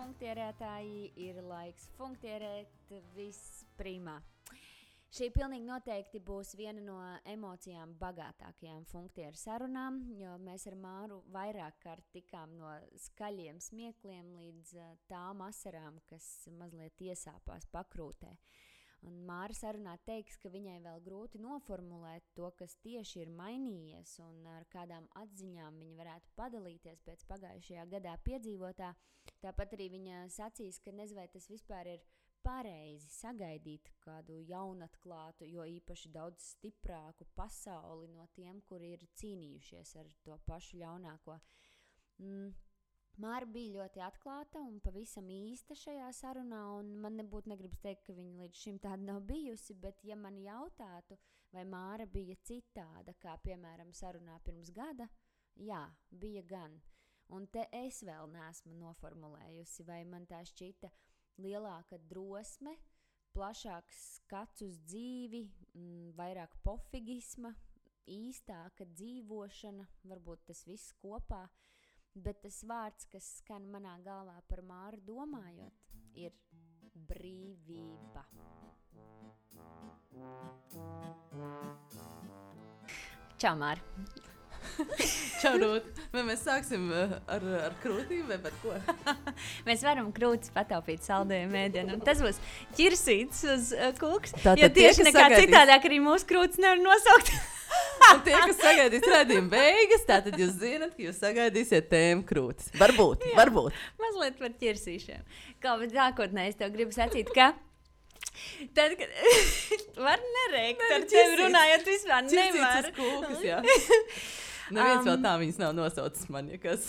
funktierētāji, ir laiks funktierēt visprimā. Šī pilnīgi noteikti būs viena no emocijām bagātākajām funktieru sarunām, jo mēs ar Māru vairāk kārt tikām no skaļiem smiekliem līdz tām asarām, kas mazliet iesāpās pakrūtē. Un Māra sarunā teiks, ka viņai vēl grūti noformulēt to, kas tieši ir mainījies un ar kādām atziņām viņa varētu padalīties pēc pagājušajā gadā piedzīvotā. Tāpat arī viņa sacīs, ka nezinu, vai tas vispār ir pareizi sagaidīt kādu jaunatklātu, jo īpaši daudz stiprāku pasauli no tiem, kuri ir cīnījušies ar to pašu ļaunāko. Māra bija ļoti atklāta un pavisam īsta šajā sarunā, un man nebūtu negribas teikt, ka viņa līdz šim tāda nav bijusi, bet ja man jautātu, vai Māra bija citāda, kā piemēram sarunā pirms gada, jā, bija gan. Un te es vēl neesmu noformulējusi, vai man tā šķita lielāka drosme, plašāks skats uz dzīvi, vairāk pofigisma, īstāka dzīvošana, varbūt tas viss kopā. Bet tas vārds, kas skan manā galvā par Māru domājot, ir brīvība. Čau, Māra! Čau, Rūt! Vai mēs sāksim ar krūtīm vai par ko? Mēs varam krūtis pataupīt saldējumu ēdienu, un tas būs ķirsīts uz kūks, Tātad jo tieši nekā citādāk arī mūsu krūtis nevar nosaukt. Un tie, kas sagaidīs redzījuma beigas, tātad jūs zinat, ka jūs sagaidīsiet tēmu krūtis. Varbūt. Mazliet par ķirsīšiem. Kā, bet nākotnē es tev gribu sacīt, ka tad, kad var nerēkt ar tevi runājot vispār nevar. Ķirsīts uz kūkas, jā. Neviens vēl tā viņas nav nosaucis man, ja kas.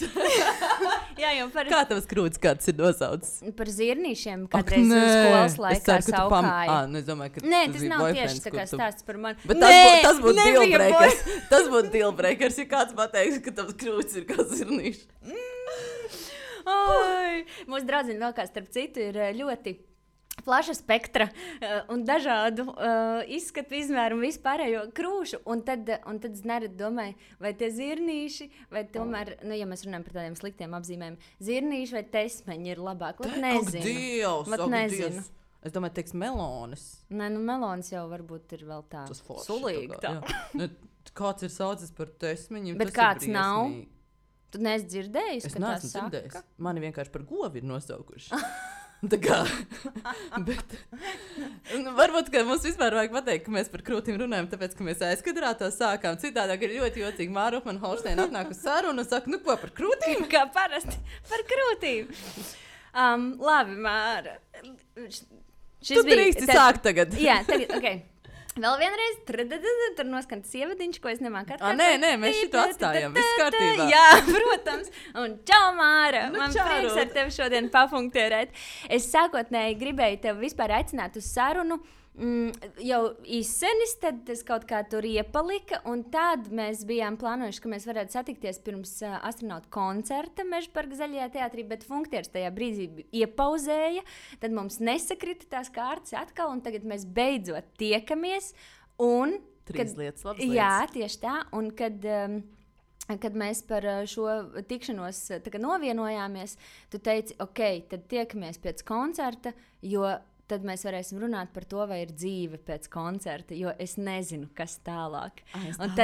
Jā, jau par... Kā tavas krūtis kāds ir nosaucis? Par zirnīšiem, kādreiz skolas laikā saukāja. Es domāju, ka nē, tas nav tieši tā kā stāsts par mani. Bet tas būtu dealbreakers. Tas būtu dealbreakers, ja kāds pateiks, ka tavas krūtis ir kā zirnīši. Mūsu draudziņa vēl kā starp citu ir ļoti plaša spektra un dažādu izskatu, izmēru un vispārējo krūšu. Un tad es nerad domāju, vai tie zirnīši, vai tomēr, ja mēs runājam par tādiem sliktiem apzīmējumiem, zirnīši vai tesmeņi ir labāk. Nezinu. Nezinu. Es domāju, teiks melonis. Nē, melonis jau varbūt ir vēl tā sulīgi. Kāds ir saucis par tesmeņiem, bet kāds nav? Tu neesi dzirdējis, ka tā saka? Dzirdējis. Mani vienkārši par govi ir nosaukuši. Tā kā, bet varbūt, ka mums vispār vajag pateikt, ka mēs par krūtīm runājam, tāpēc, ka mēs aizkadrā to sākām. Citādāk ir ļoti jocīgi. Māra Upmann-Holšteina atnāk uz sarunu un saka, nu ko, par krūtīm? Kā parasti, par krūtīm. Labi, Māra. Tu drīksti sākt tagad. Jā, tagad, ok. Vēl vienreiz, tur noskan tas ievadiņš, ko es nemāku atkārtot. Nē, mēs šito atstājam, viss kārtībā. Jā, protams. Un čau, Māra! Man prieks ar tevi šodien pafunktierēt. Es sākotnēji gribēju tevi vispār aicināt uz sarunu. Jau izsenis, tad tas kaut kā tur iepalika, un tad mēs bijām plānojuši, ka mēs varētu satikties pirms astronautu koncerta Mežaparka Zaļajā teātrī, bet funktieris tajā brīdī iepauzēja, tad mums nesakrita tās kārtas atkal, un tagad mēs beidzot tiekamies, un... Trīs lietas, labas lietas. Jā, tieši tā, un kad mēs par šo tikšanos novienojāmies, tu teici, ok, tad tiekamies pēc koncerta, jo tad mēs varēsim runāt par to, vai ir dzīve pēc koncerta, jo es nezinu, kas tālāk. Un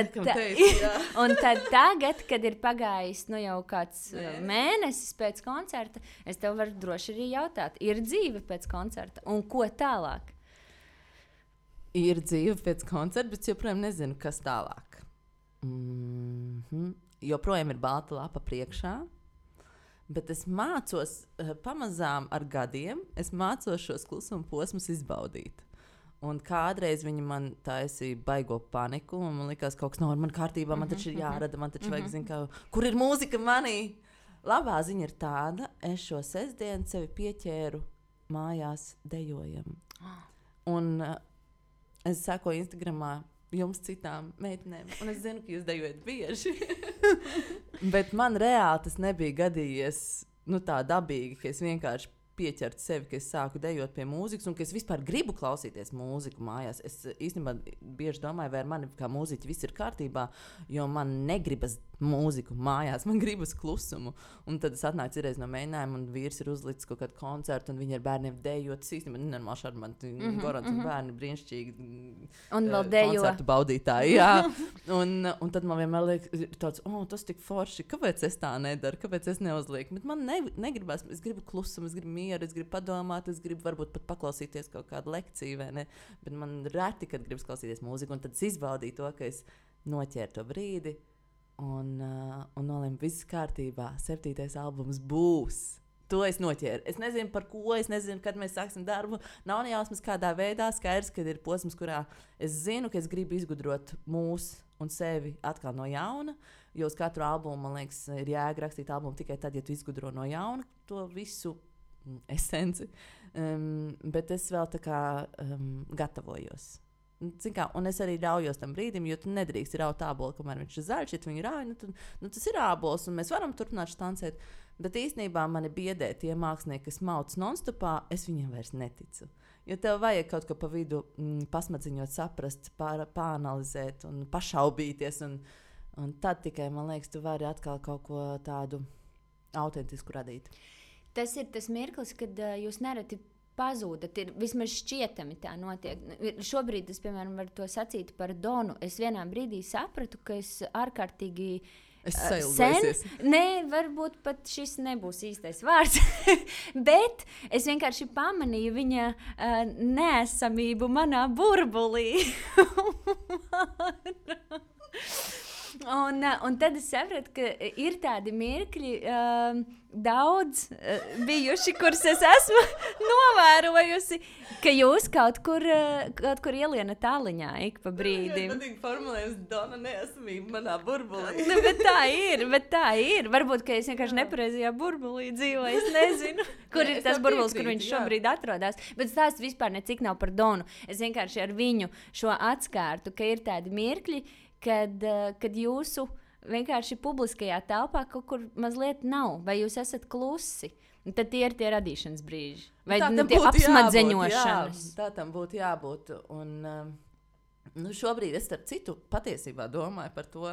tad tagad, kad ir pagājis jau kāds mēnesis pēc koncerta, es tev varu droši arī jautāt, ir dzīve pēc koncerta un ko tālāk? Ir dzīve pēc koncerta, bet joprojām nezinu, kas tālāk. Joprojām ir balta lapa priekšā. Bet es mācos pamazām ar gadiem, es mācos šos klusuma posmus izbaudīt. Un kādreiz viņi man taisīja baigo paniku, un man likās, kaut kas nav ar mani kārtībā, man taču ir jārada, man taču vajag zināt, kur ir mūzika manī. Labā ziņa ir tāda, es šo sestdienu sevi pieķēru mājās dejojam. Un es sekoju Instagramā jums citām meitenēm, un es zinu, ka jūs dejojat bieži. Bet man reāli tas nebija gadījies tā dabīgi, ka es vienkārši pieķertu sevi, ka es sāku dejot pie mūzikas un ka es vispār gribu klausīties mūziku mājās. Es īstenībā bieži domāju, vai ar mani kā mūziķi viss ir kārtībā, jo man negribas mūziku mājās, man gribas klusumu. Un tad es atnācu reiz no mēģinājuma, un vīrs ir uzlicis kaut kādu koncertu, un viņi ar bērniem dejo. Tas īstenībā nenormāli šarmanti, Gorants un bērni brīnišķīgi. Un vēl dejo. Koncertu baudītāji, jā. un tad man vienmēr liekas, tāds, tas tik forši, kāpēc es tā nedaru, kāpēc es neuzlieku. Bet man negribas, es gribu klusumu, es gribu mieru, es gribu padomāt, es gribu varbūt pat paklausīties kaut kādu lekciju, vai ne? Bet man reti, kad gribas klausīties mūziku, un tad es izbaudīju to, ka es noķēru to brīdi un nolēmu, viss kārtībā, 7. albums būs. To es noķēru. Es nezinu, par ko, es nezinu, kad mēs sāksim darbu. Nav nejausmas kādā veidā, skaidrs, kad ir posms, kurā es zinu, ka es gribu izgudrot mūs un sevi atkal no jauna, jo uz katru albumu, man liekas, ir jēga rakstīt albumu tikai tad, ja tu izgudro no jauna to visu esenci. Bet es vēl tā kā gatavojos. Kā, un es arī ļaujos tam brīdim, jo tu nedrīkst raut ābolu, kamēr viņš ir zaļš. Ja tu viņu rauj, tas ir ābols, un mēs varam turpināt štancēt. Bet īstenībā mani biedē tie mākslinieki, kas mauc non-stopā, es viņiem vairs neticu. Jo tev vajag kaut ko pa vidu pasmadziņot, saprast, pāanalizēt un pašaubīties. Un tad tikai, man liekas, tu vari atkal kaut ko tādu autentisku radīt. Tas ir tas mirklis, kad jūs nereti pazūdat, ir vismaz šķietami tā notiek. Šobrīd es, piemēram, varu to sacīt par Donu. Es vienā brīdī sapratu, ka es ārkārtīgi sen, varbūt pat šis nebūs īstais vārds, bet es vienkārši pamanīju viņa neesamību manā burbulī. Un tad es sapratu, ka ir tādi mirkļi daudz bijuši, kurus es esmu novērojusi, ka jūs kaut kur ielienat tāliņā ik pa brīdim. Man patīk formulējums Dona neesamība manā burbulī. Bet tā ir. Varbūt, ka es vienkārši nepareizajā burbulī dzīvoju, es nezinu, kur ir tas burbulis, kur viņš šobrīd atrodas. Bet stāsts vispār necik nav par Donu. Es vienkārši ar viņu šo atskārtu, ka ir tādi mirkļi, kad jūsu vienkārši publiskajā telpā kaut kur mazliet nav, vai jūs esat klusi. Un tad tie ir tie radīšanas brīži. Vai tie apsmadzeņošanas. Tā tam būtu jābūt. Un šobrīd es starp citu patiesībā domāju par to,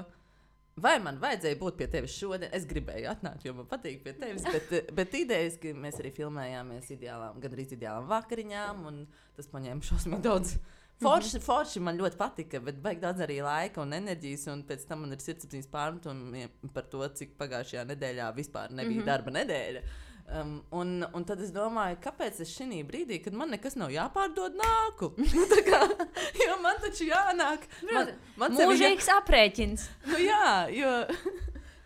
vai man vajadzēja būt pie tevis šodien. Es gribēju atnākt, jo man patīk pie tevis, bet idejas, ka mēs arī filmējāmies gandrīz ideālām vakariņām, un tas paņēma šausmīgi daudz. Forši man ļoti patika, bet vajag daudz arī laika un enerģijas, un pēc tam man ir sirdsapziņas pārmetumi par to, cik pagājušajā nedēļā vispār nebija darba nedēļa. Un tad es domāju, kāpēc es šī brīdī, kad man nekas nav jāpārdod, nāku? Jo man taču jānāk. Mūžīgs aprēķins. Jo...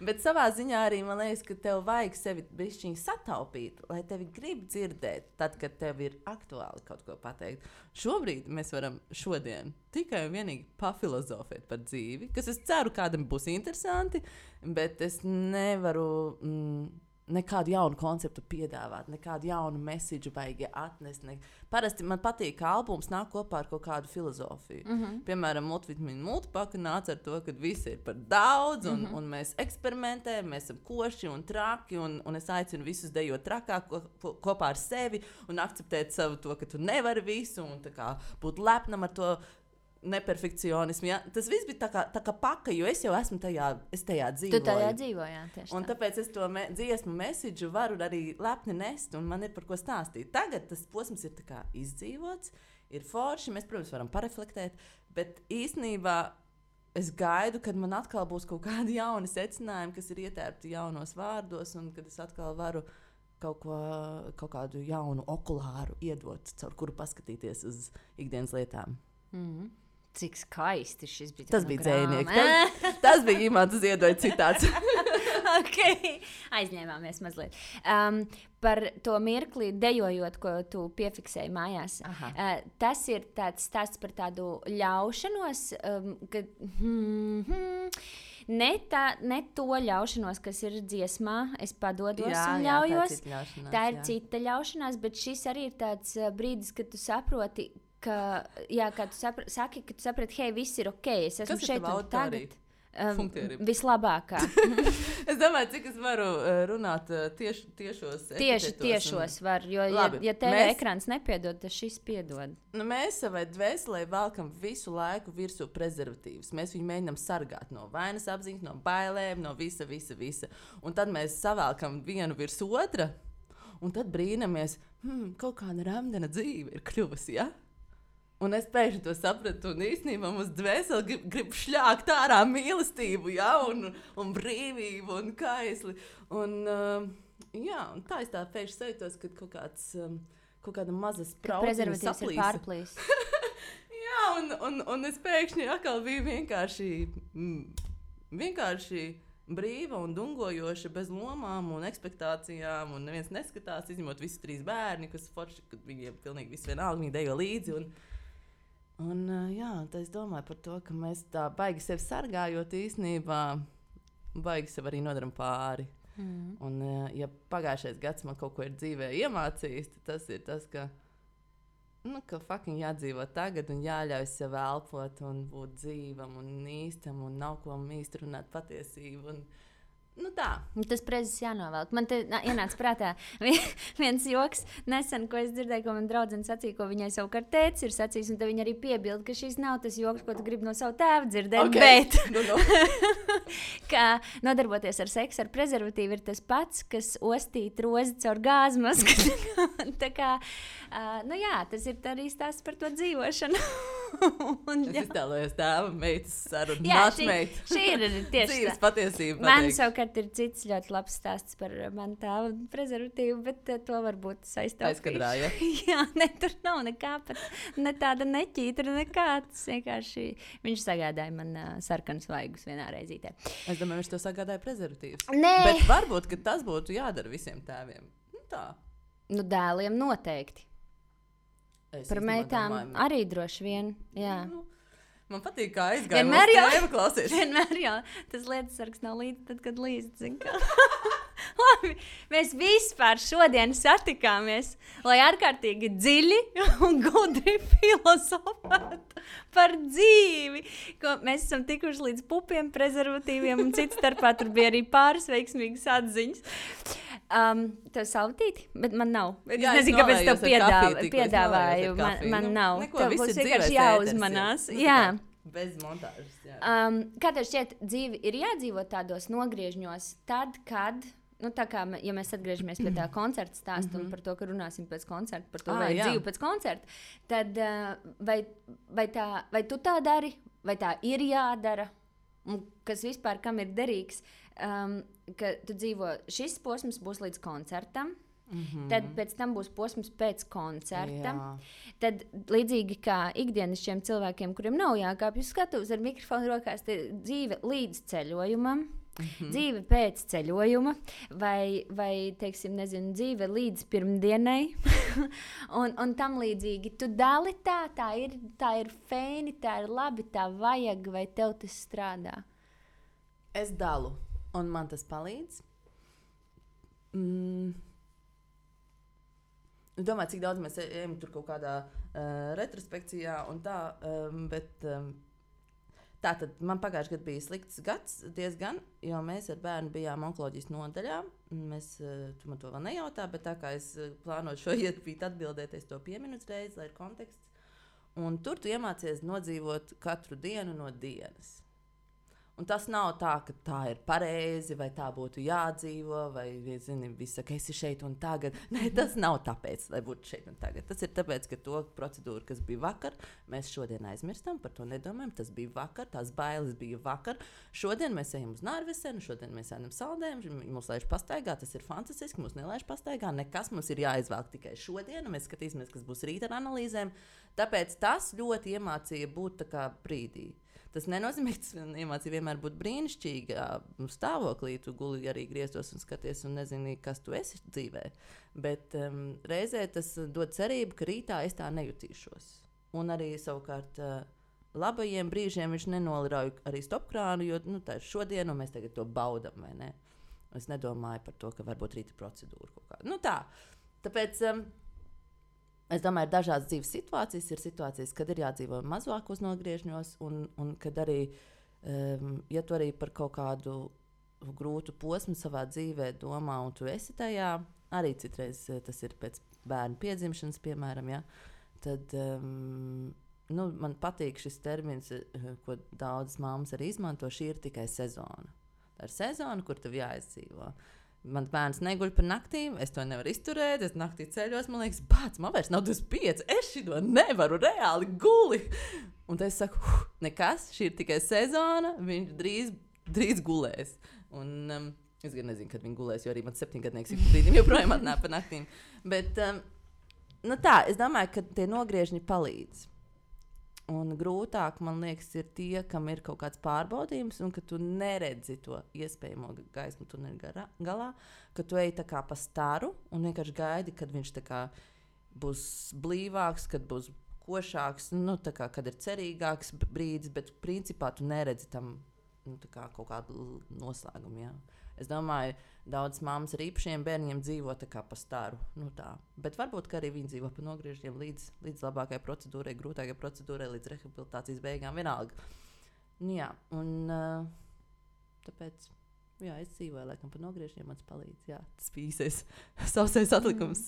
Bet savā ziņā arī man liekas, ka tev vajag sevi bišķiņ sataupīt, lai tevi grib dzirdēt, tad, kad tev ir aktuāli kaut ko pateikt. Šobrīd mēs varam tikai un vienīgi pafilozofēt par dzīvi, kas es ceru kādam būs interesanti, bet es nevaru nekādu jaunu konceptu piedāvāt, nekādu jaunu mēsīdžu baigi atnest. Parasti man patīk, ka albums nāk kopā ar kaut kādu filozofiju. Piemēram, multivitamīnu multipaka nāca ar to, ka visi ir par daudz, un mēs eksperimentējam, mēs esam koši un traki, un es aicinu visus dejot trakāk kopā ar sevi un akceptēt savu to, ka tu nevari visu, un tā kā būt lepnam ar to neperfekcionismu. Ja? Tas viss bija tā kā paka, jo es jau esmu tajā dzīvoju. Tu tajā dzīvojā, tieši un tāpēc es to dziesmu mēsīdžu varu arī lepni nest, un man ir par ko stāstīt. Tagad tas posms ir tā kā izdzīvots, ir forši, mēs, protams, varam pareflektēt, bet īstenībā es gaidu, kad man atkal būs kaut kādi jauni secinājumi, kas ir ietērpti jaunos vārdos, un kad es atkal varu kaut kādu jaunu okulāru iedot, caur kuru paskatīties uz ikdienas lietām. Cik skaisti šis bija. Tas bija dzējnieks. Tas bija Imants Ziedoja citāts. Okay. Aizņēmāmies mazliet. Par to mirkli dejojot, ko tu piefiksēji mājās. Tas ir tāds stāsts par tādu ļaušanos, ka... Ne to ļaušanos, kas ir dziesmā, es padodos un ļaujos. Tā ir cita ļaušanās, bet šis arī ir tāds brīdis, kad tu saproti, kā tu saki, ka tu saprati, hei, viss ir ok, es esmu šeit un tagad. Vislabākā. Es domāju, cik es varu runāt tiešos var, jo, ja tev ekrāns nepiedod, tad šis piedod. Nu, mēs savai dvēselē velkam visu laiku virsū prezervatīvus. Mēs viņu mēģinām sargāt no vainas apziņas, no bailēm, no visa. Un tad mēs savelkam vienu virs otra, un tad brīnamies, kaut kāda ramdena dzīve ir kļuvusi, ja? Un es pēkšņi to sapratu, un īstenībā mums dvēseli grib šļākt ārā mīlestību, ja? un brīvību, un kaisli. Un tā es tā pēkšņi sajūtos, kad kaut kāda maza sprauciņa prezervatīvs ir pārplīs. Jā, un es pēkšņi atkal biju vienkārši brīva un dungojoša, bez lomām un ekspektācijām, un neviens neskatās, izņemot visus 3 bērni, kas forši, kad viņiem pilnīgi viss vienalga, viņi dejo līdzi. Tā es domāju par to, ka mēs tā baigi sevi sargājot īstenībā, baigi sev arī nodaram pāri. Un, ja pagājušais gads man kaut ko ir dzīvē iemācījis, tad tas ir tas, ka fucking jādzīvo tagad un jāļauj sev elpot un būt dzīvam un īstam un nav ko īsti runāt patiesību. Tā. Tas prezis jānovelk. Man te ienāca prātā viens joks nesen, ko es dzirdēju, ko man draudzene sacīja, ko viņai savukārt tētis ir sacījis, un tad viņa arī piebilda, ka šis nav tas joks, ko tu gribi no savu tēvu dzirdēt, bet ka nodarboties ar seksu ar prezervatīvu ir tas pats, kas ostīt rozi caur gāzmasku. Tā kā, tas ir arī stāsts par to dzīvošanu. Es iztēlojos tēva meitas sarunu. Šī ir tieši dzīves patiesība. Man savukārt ir cits ļoti labs stāsts par manu tēva prezervatīvu, bet to varbūt saistīt. Aizkadrā, ja? Jā, tur nav nekā pat, ne tāda neķītra, nekā. Tas vienkārši viņš sagādāja man sarkanus vaigus vienā reizītē. Es domāju, viņš to sagādāja prezervatīvus. Nē. Bet varbūt, ka tas būtu jādara visiem tēviem. Tā. Dēliem noteikti. Par meitām arī droši vien, jā. Man patīk, kā aizgāja mūsu tēva klausies. Vienmēr jau tas lietas sargs nav līdz tad, kad līdz, zin kā. Labi, mēs vispār šodien satikāmies, lai ārkārtīgi dziļi un gudri filozofētu par dzīvi. Mēs esam tikuši līdz pupiem, prezervatīviem un cits starpā tur bija arī pāris veiksmīgas atziņas. Tev saltīti, bet man nav. Es nezinu, kāpēc tev piedāvāju. Man nav. Tev būs vienkārši jāuzmanās. Jā. Bez montāžas. Jā. Kā tev šķiet, dzīve ir jādzīvot tādos nogriežņos, tad, kad, tā kā, ja mēs atgriežamies pie tā koncerta stāsta un par to, ka runāsim pēc koncerta, par to, vai dzīve pēc koncerta, tad vai tu tā dari, vai tā ir jādara, un kas vispār kam ir derīgs, ka tu dzīvo, šis posms būs līdz koncertam, tad pēc tam būs posms pēc koncerta. Jā. Tad līdzīgi kā ikdienišķiem cilvēkiem, kuriem nav jākāpj uz skatuves ar mikrofonu rokās, dzīve līdz ceļojumam, dzīve pēc ceļojuma, vai teiksim, nezinu, dzīve līdz pirmdienai, un tam līdzīgi. Tu dali tā ir feini, tā ir labi, tā vajag, vai tev tas strādā? Es dalu, un man tas palīdz. Domāju, cik daudz mēs ejam tur kaut kādā retrospekcijā un tā, bet tā tad man pagājušajā gadā bija slikts gads diezgan, jo mēs ar bērnu bijām onkoloģijas nodaļā. Tu man to vēl nejautā, bet tā kā es plānoju šo iespīt atbildēt, es to pieminu uzreiz, lai ir konteksts. Un tur tu iemācies nodzīvot katru dienu no dienas. Un tas nav tā, ka tā ir pareizi, vai tā būtu jādzīvo, vai, zini, visi saka, esi šeit un tagad. Nē, tas nav tāpēc, lai būtu šeit un tagad. Tas ir tāpēc, ka to procedūru, kas bija vakar, mēs šodien aizmirstam, par to nedomājam. Tas bija vakar, tās bailes bija vakar. Šodien mēs ejam uz Nārvesenu, šodien mēs ejam saldējumu, mūs laiž pastaigā, tas ir fantastiski, mūs nelaiž pastaigā, nekas mums ir jāizvelk tikai šodien, un mēs skatīsimies, kas būs rīt ar analīzēm. Tāpēc tas ļoti iemācīja būt tā kā brīdī. Tas nenozīmē, ka tas iemācīja vienmēr būt brīnišķīgā stāvoklī. Tu guli arī grieztos un skaties un nezini, kas tu esi dzīvē. Bet reizē tas dod cerību, ka rītā es tā nejutīšos. Un arī savukārt labajiem brīžiem viņš nenolirauj arī stopkrānu, jo tā ir šodien un mēs tagad to baudam, vai ne? Es nedomāju par to, ka varbūt rīta procedūra kaut kā. Tā. Tāpēc es domāju, ir dažādas dzīves situācijas. Ir situācijas, kad ir jādzīvo mazākos nogriežņos, un kad arī Ja tu arī par kaut kādu grūtu posmu savā dzīvē domā, un tu esi tajā, arī citreiz tas ir pēc bērnu piedzimšanas, piemēram, ja, tad man patīk šis termins, ko daudzas mammas arī izmanto, šī ir tikai sezona. Tā ir sezona, kur tev jāizdzīvo. Mans bērns neguļ par naktīm, es to nevaru izturēt, es naktī ceļos, man liekas, bāc, man vairs nav 25, es šito nevaru reāli guli. Un tad es saku, nekas, šī ir tikai sezona, viņš drīz gulēs. Un es gan nezinu, kad viņi gulēs, jo arī mans 7-gadnieks ik brīdim joprojām atnāk par naktīm. Bet tā, es domāju, ka tie nogriežņi palīdz. Un grūtāk, man liekas, ir tie, kam ir kaut kāds pārbaudījums, un ka tu neredzi to iespējamo gaismu tuneļa galā, ka tu ej tā kā pa staru un vienkārši gaidi, kad viņš tā kā būs blīvāks, kad būs košāks, tā kā, kad ir cerīgāks brīdis, bet principā tu neredzi tam tā kā kaut kādu noslēgumu. Jā. Es domāju, daudzas mammas ar īpašiem bērniem dzīvo tā kā pa staru. Tā. Bet varbūt arī viņi dzīvo pa nogriežņiem līdz labākajai procedūrai, grūtākajai procedūrai, līdz rehabilitācijas beigām vienalga. Jā, un tāpēc es dzīvoju laikam pa nogriežņiem, man tas palīdz. Jā, tas pīsies sausais atlikums.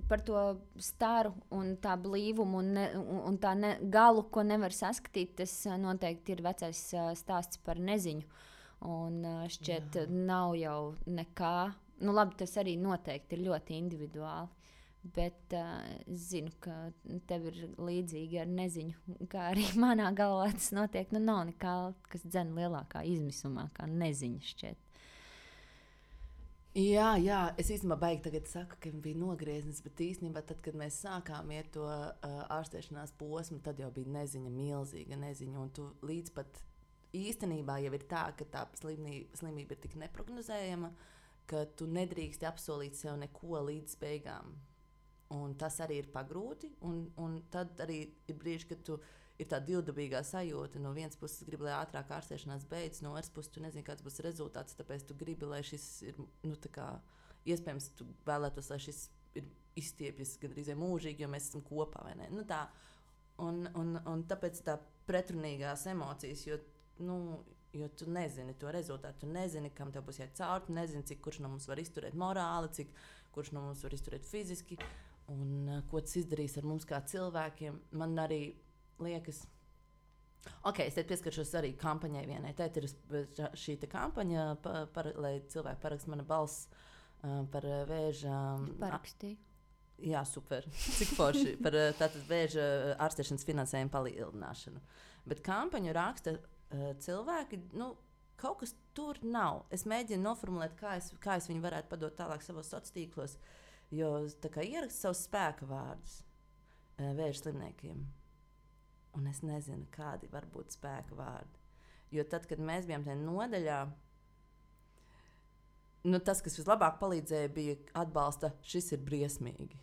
Par to staru un tā blīvumu un tā galu, ko nevar saskatīt, tas noteikti ir vecais stāsts par neziņu. Un šķiet, nav jau nekā. Labi, tas arī noteikti ir ļoti individuāli. Bet es zinu, ka tev ir līdzīgi ar neziņu. Kā arī manā galvā tas notiek. Nav nekā, kas dzen lielākā izmisumā, kā neziņa šķiet. Jā, es īstenībā baigi tagad saku, ka bija nogrieznis, bet īstenībā tad, kad mēs sākām iet to ārstēšanās posmu, tad jau bija neziņa, milzīga neziņa. Un tu līdz pat īstenībā jau ir tā, ka tā slimība ir tik neprognozējama, ka tu nedrīksti apsolīt sev neko līdz beigām. Un tas arī ir pagrūti, un tad arī ir brīži, kad tu ir tā divdabīgā sajūta. No vienas puses gribi, lai ātrāk ārstēšanās beidzas, no otras puses tu nezini, kāds būs rezultāts, tāpēc tu gribi, lai šis ir, iespējams, tu vēlētos, lai šis ir izstiepjas gandrīz mūžīgi, jo mēs esam kopā, vai ne? Tā. Un tāpēc tā pretrunīgās emocijas, jo tu nezini to rezultātu, tu nezini, kam tev būs jāiet cauri, tu nezini, cik kurš no mums var izturēt morāli, kurš no mums var izturēt fiziski, un ko tas izdarīs ar mums kā cilvēkiem. Man arī liekas, es te pieskaršos arī kampaņai vienai. Tēt ir šī kampaņa, lai cilvēki parakst mana balss par vēža... Parakstīju. Jā, super. Cik forši par tātad vēža ārstēšanas finansējumu palielināšanu. Bet kampaņu raksta cilvēki, kaut kas tur nav. Es mēģinu noformulēt, kā es viņu varētu padot tālāk savos sociālos tīklos, jo tā kā ierakst savus spēka vārdus vēža slimniekiem. Un es nezinu, kādi var būt spēka vārdi. Jo tad, kad mēs bijām tajā nodaļā, tas, kas vislabāk palīdzēja, bija atbalsta, šis ir briesmīgi.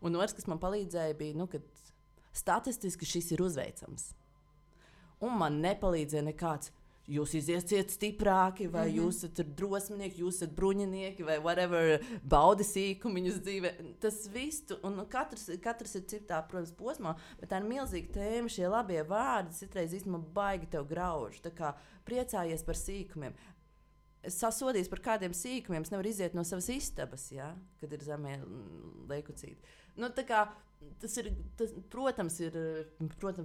Un otrs, kas man palīdzēja, bija, ka statistiski šis ir uzveicams. Un man nepalīdzēja nekāds, jūs iziesiet stiprāki, vai jūs esat drosminieki, jūs esat bruņinieki, vai whatever, baudi sīkumiņus dzīvē. Tas viss, un katrs ir citā, protams, posmā, bet tā ir milzīga tēma, šie labie vārdi citreiz īstenībā baigi tev grauž. Tā kā priecājies par sīkumiem. Es sasodīju par kādiem sīkumiem, es nevaru iziet no savas istabas, ja, kad ir zemie leikucīti. Protams,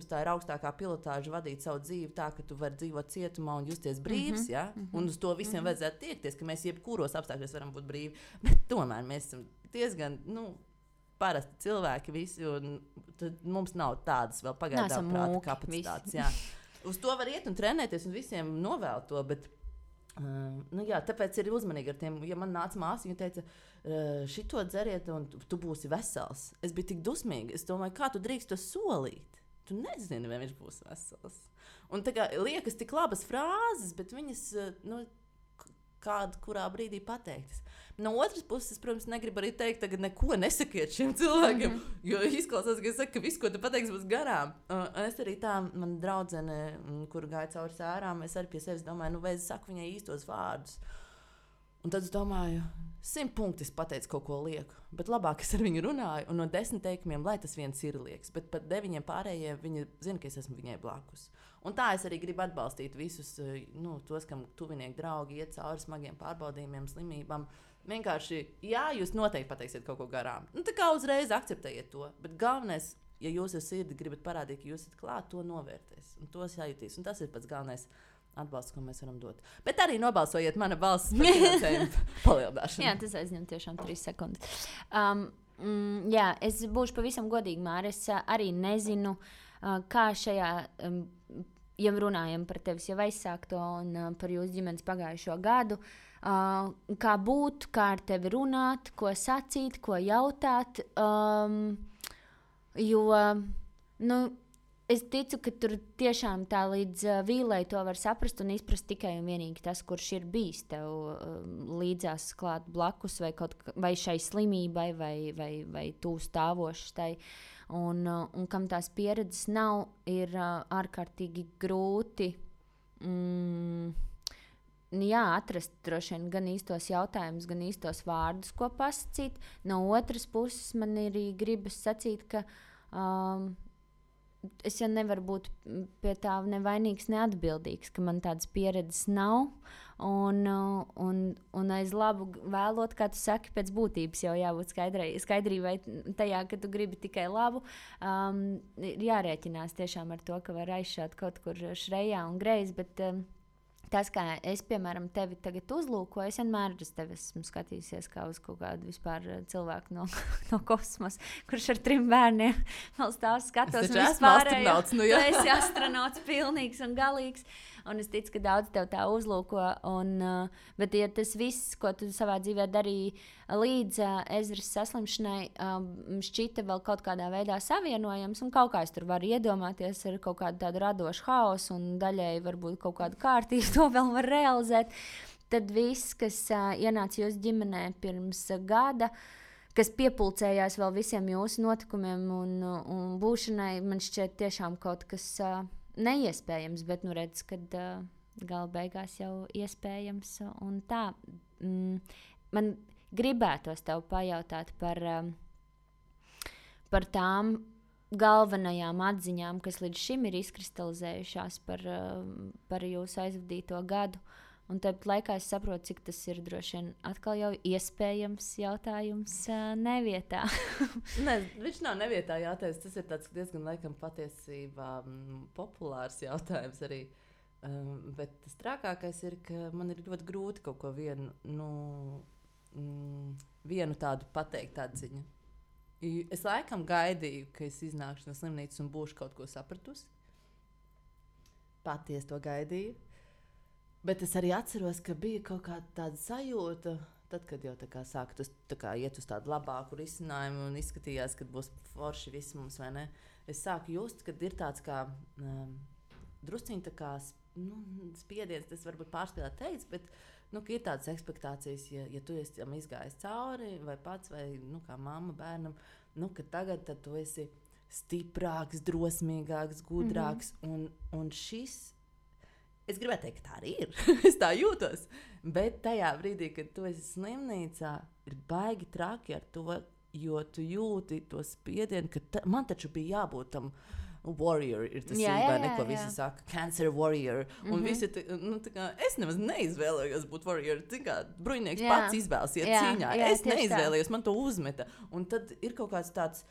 tā ir augstākā pilotāža vadīt savu dzīvi tā, ka tu vari dzīvot cietumā un justies brīvs, ja? Un uz to visiem vajadzētu tiekties, ka mēs jebkuros apstākļos varam būt brīvi. Bet tomēr mēs esam diezgan, parasti cilvēki visi, un mums nav tādas vēl pagaidām prāta kapacitātes. Jā. Uz to var iet un trenēties un visiem novēl to, bet tāpēc ir uzmanīgi ar tiem. Ja man nāca māsa, viņa teica, šito dzeriet un tu būsi vesels. Es biju tik dusmīga. Es domāju, kā tu drīkst to solīt? Tu nezini, vai viņš būs vesels. Un tā kā liekas tik labas frāzes, bet viņas, kurā brīdī pateiktas. No otras puses, protams, negribu arī teikt, tagad neko nesakiet šiem cilvēkiem, jo izklausās, ka es saku, ka viss, ko tu pateiksi, būs garām. Es arī tā, man draudzene, kur gāja cauri sērām, es arī pie sevis domāju, vai es saku viņai īstos vārdus. Un tad es domāju, 100 punkti es pateicu kaut ko lieku, bet labāk es ar viņu runāju, un no 10 teikumiem, lai tas viens ir liekas, bet pat 9 pārējiem viņa zina, ka es esmu viņai blakus. Un tā es arī gribu atbalstīt visus, tos, kam tuvinieki draugi iet cauri smagiem pārbaudījumiem, slimībām. Vienkārši, jā, jūs noteikti pateiksiet kaut ko garām. Tā kā uzreiz akceptējiet to, bet galvenais, ja jūs ar sirdi gribat parādīt, ka jūs esat klāt, to novērtēs, un tos jājutīs, un tas ir pats galvenais atbalsts, ko mēs varam dot. Bet arī nobalsojiet mana balss par finansējumu palielināšanu. Jā, tas aizņem tiešām 3 sekundes. Jā, es būšu pavisam godīgi, Māra. Es arī nezinu, kā šajā, ja runājam par tevis jau aizsākto un par jūsu ģimenes pagājušo gadu, kā būt, kā ar tevi runāt, ko sacīt, ko jautāt, jo, es ticu, ka tur tiešām tā līdz vīlei to var saprast un izprast tikai un vienīgi tas, kurš ir bijis tev līdzās klāt blakus vai šai slimībai vai tūs stāvošs tai. Un kam tās pieredzes nav, ir ārkārtīgi grūti atrast droši vien gan īstos jautājumus, gan īstos vārdus, ko pasakīt. No otras puses man arī gribas sacīt, ka es jau nevaru būt pie tā nevainīgs, neatbildīgs, ka man tādas pieredzes nav. Un aiz labu vēlot, kā tu saki, pēc būtības jau jābūt skaidrībai tajā, ka tu gribi tikai labu. Ir jārēķinās tiešām ar to, ka var aizšāt kaut kur šrejā un greizi, bet tas, kā es, piemēram, tevi tagad uzlūkoju, es vienmēr uz tevi esmu skatījusies kā uz kaut kādu vispār cilvēku no kosmosa, kurš ar 3 bērniem vēl stāv skatos. Es esmu astronauts, Tu esi astronauts pilnīgs un galīgs, un es ticu, ka daudz tev tā uzlūko. Bet ja tas viss, ko tu savā dzīvē darīji līdz Ezras saslimšanai, šķita vēl kaut kādā veidā savienojams, un kaut kā es tur varu iedomāties ar kaut kādu tādu radošu haosu, un daļēji varbūt kaut kādu kārtību to vēl var realizēt, tad viss, kas ienāca jūsu ģimenē pirms gada, kas piepulcējās vēl visiem jūsu notikumiem un būšanai, man šķiet tiešām kaut kas neiespējams, bet redz, kad gala beigās jau iespējams. Un tā, man gribētos tev pajautāt par tām galvenajām atziņām, kas līdz šim ir izkristalizējušās par jūsu aizvadīto gadu. Un tāpat laikā es saprotu, cik tas ir droši vien atkal jau iespējams jautājums nevietā. Nē, viņš nav nevietā jautājums. Tas ir tāds diezgan laikam patiesībā populārs jautājums arī. Bet tas trakākais ir, ka man ir ļoti grūti kaut ko vienu tādu pateikt atziņu. Es laikam gaidīju, ka es iznākšu no slimnīcas un būšu kaut ko sapratusi. Patiesi to gaidīju. Bet es arī atceros, ka bija kaut kāda tāda sajūta, tad, kad jau sāka iet uz tādu labāku risinājumu un izskatījās, ka būs forši viss mums, vai ne? Es sāku just, kad ir tāds kā drusciņi tā kā spiediens, tas varbūt pārspīlēt teiks, bet ka ir tādas ekspektācijas, ja tu esi tam izgājis cauri, vai pats, vai kā mamma bērnam, ka tagad tad tu esi stiprāks, drosmīgāks, gudrāks, un šis. Es gribētu teikt, ka tā arī ir. Es tā jūtos. Bet tajā brīdī, kad tu esi slimnīcā, ir baigi traki ar to, jo tu jūti to spiedienu, ka man taču bija jābūt tam warrior, ir tas īstenībā, ko visi saka, cancer warrior. Un visi, es nemaz neizvēlējos būt warrior. Bruņinieks pats izvēlas iet cīņā. Es neizvēlējos, man to uzmeta. Un tad ir kaut kāds tāds.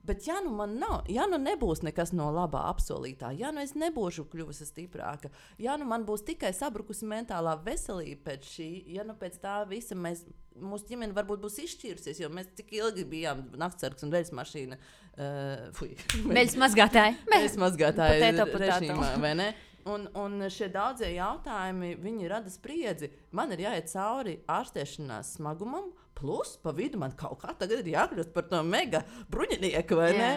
Bet ja man nav, ja nebūs nekas no labā apsolītā, ja es nebūšu kļuvusi stiprāka, ja man būs tikai sabrukusi mentālā veselība pēc šī, ja pēc tā visa mūsu ģimene varbūt būs izšķīrusies, jo mēs tik ilgi bijām naktsargs un veļas mašīna. Veļas mazgātāji. Veļas mazgātāji režīmā, vai ne? Un šie daudzie jautājumi, viņi rada spriedzi. Man ir jāiet cauri ārstēšanās smagumam, plus pa vidu man kaut kā tagad ir jākļūst par to mega bruņinieku, vai ne?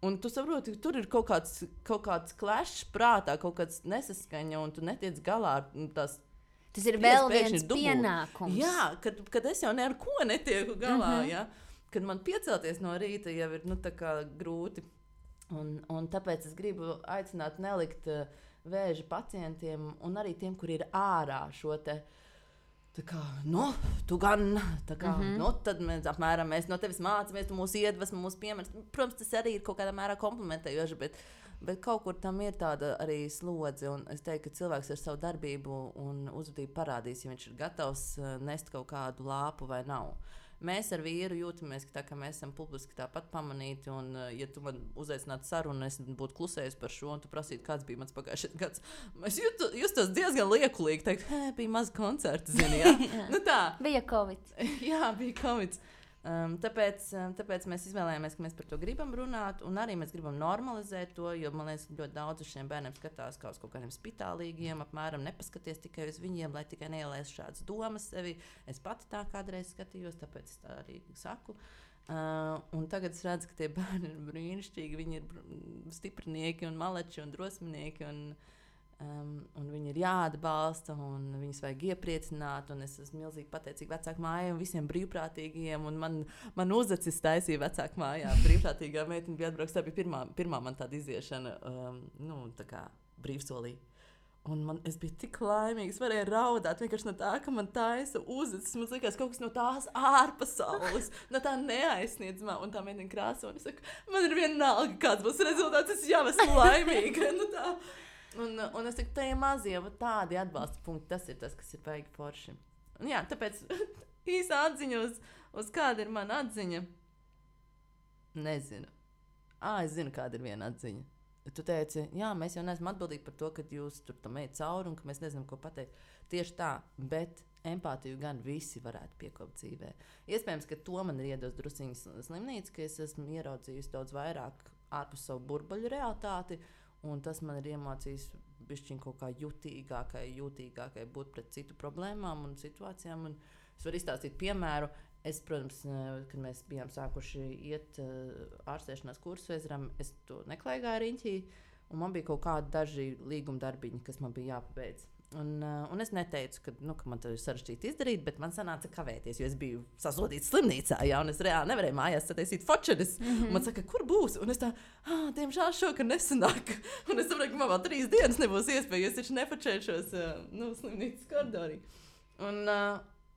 Un tu saproti, ka tur ir kaut kāds klešs prātā, kaut kāds nesaskaņa, un tu netiec galā ar tās. Tas ir vēl viens pienākums. Jā, kad es jau ne ar ko netieku galā, ja? Kad man piecelties no rīta jau ir tā kā grūti. Un tāpēc es gribu aicināt nelikt vēža pacientiem un arī tiem, kuri ir ārā šo te Tā kā, tu gan, tā kā, tad mēs no tevis mācāmies, tu mūs iedvesmo, mūs piemērs. Protams, tas arī ir kaut kādā mērā komplementējoši, bet kaut kur tam ir tāda arī slodze. Un es teiktu, ka cilvēks ar savu darbību un uzvedību parādīs, ja viņš ir gatavs nest kaut kādu lāpu vai nav. Mēs ar vīru jūtamies, ka mēs esam publiski tāpat pamanīti, un ja tu man uzaicinātu sarunu, es būtu klusējis par šo, un tu prasītu, kāds bija mans pagājušais gads. Es justos diezgan liekulīgi, teikt, bija maz koncerti, zini, jā? Nu tā. Bija Covid. Jā, bija Covid. Tāpēc mēs izvēlējāmies, ka mēs par to gribam runāt, un arī mēs gribam normalizēt to, jo man liekas, ļoti daudz uz šiem bērniem skatās kā uz kaut kādiem spitālīgiem, apmēram nepaskaties tikai uz viņiem, lai tikai neielēs šādas domas sevi. Es pati tā kādreiz skatījos, tāpēc es tā arī saku. Un tagad es redzu, ka tie bērni ir brīnišķīgi, viņi ir stiprinieki un maleči un drosminieki, un viņi ir jāatbalsta, un viņus vajag iepriecināt, un es esmu milzīgi pateicīga vecāku mājai un visiem brīvprātīgajiem, un man uzacis taisīja vecāku mājā. Brīvprātīgā meitene bija atbrauks, tā bija pirmā man tāda iziešana, tā kā brīvsolī. Un es biju tik laimīga, es varēju raudāt vienkārši no tā, ka man taisa uzacis, man likās kaut kas no tās ārpasaules, no tā neaizsniedzamā, un tā meitene krāso, un es saku, man ir vienalga, kāds būs rezultāts, es jau esmu laimīga, tā. Un es saku, tie mazie tādi atbalsta punkti, tas ir tas, kas ir baigi forši. Un jā, tāpēc īsa atziņa uz kāda ir mana atziņa. Nezinu. Es zinu, kāda ir viena atziņa. Tu teici, jā, mēs jau neesam atbildīgi par to, ka jūs tur tam ejat cauri un ka mēs nezinām, ko pateikt. Tieši tā, bet empātiju gan visi varētu piekopt dzīvē. Iespējams, ka to man ir iedos drusiņas slimnīca, ka es esmu ieraudzījusi daudz vairāk ārpus savu burbuļu realitāti. Un tas man ir iemācījis bišķiņ kaut kā jūtīgākai būt pret citu problēmām un situācijām. Un es varu izstāstīt piemēru. Es, protams, kad mēs bijām sākuši iet ārstēšanās kursu Ezram, es to neklaigāju riņķī, un man bija kaut kādi daži līguma darbiņi, kas man bija jāpabeidz. Un es neteicu, ka man to ir sarežģīti izdarīt, bet man sanāca kavēties, jo es biju sasodīts slimnīcā, jā, un es reāli nevarēju mājās sataisīt fočeris. Man saka, kur būs? Un es tā, diemžēl šokar nesanāk. Un es saprotu, ka man vēl 3 dienas nebūs iespēja, es taču nefočēšos slimnīcas koridorī.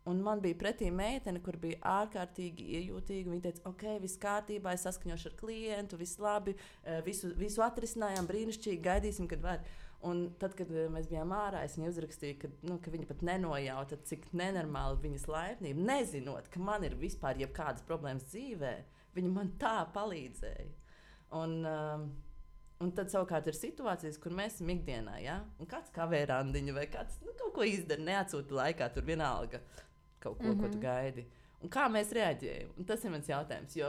Un man bija pretī meitene, kur bija ārkārtīgi iejūtīga. Viņa teica, ok, viss kārtībā, es saskaņošu ar klientu, viss labi, visu atrisinājām, brīnišķīgi, gaidīsim, kad var. Un tad, kad mēs bijām ārā, es viņai uzrakstīju, ka viņa pat nenojauta, cik nenormāli viņas laipnība, nezinot, ka man ir vispār jebkādas problēmas dzīvē, viņa man tā palīdzēja. Un tad savukārt ir situācijas, kur mēs esam ikdienā, ja? Un kāds kavē randiņu vai kāds kaut ko izdara, neatsūta laikā, tur vienalga kaut ko, ko tu gaidi. Un kā mēs reaģējam? Un tas ir mans jautājums, jo,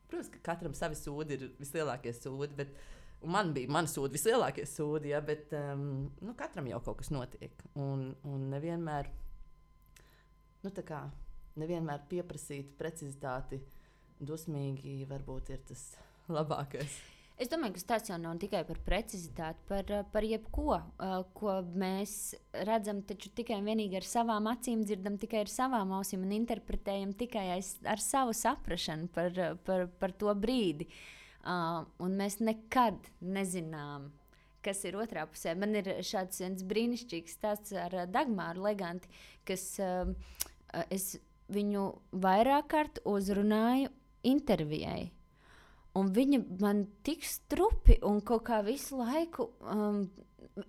protams, ka katram savi sūdi ir vislielākie sūdi, un man bija mani sūdi vislielākie sūdi, ja, bet katram jau kaut kas notiek. Un nevienmēr, nevienmēr pieprasīt precizitāti dusmīgi varbūt ir tas labākais. Es domāju, ka tas jau nav tikai par precizitāti, par jebko, ko mēs redzam taču tikai un vienīgi ar savām acīm, dzirdam tikai ar savām ausīm un interpretējam tikai ar savu saprašanu par to brīdi. Un mēs nekad nezinām, kas ir otrā pusē. Man ir šāds viens brīnišķīgs stāsts ar Dagmāru Leganti, kas es viņu vairāk kārt uzrunāju intervijai. Un viņa man tik strupi un kaut kā visu laiku,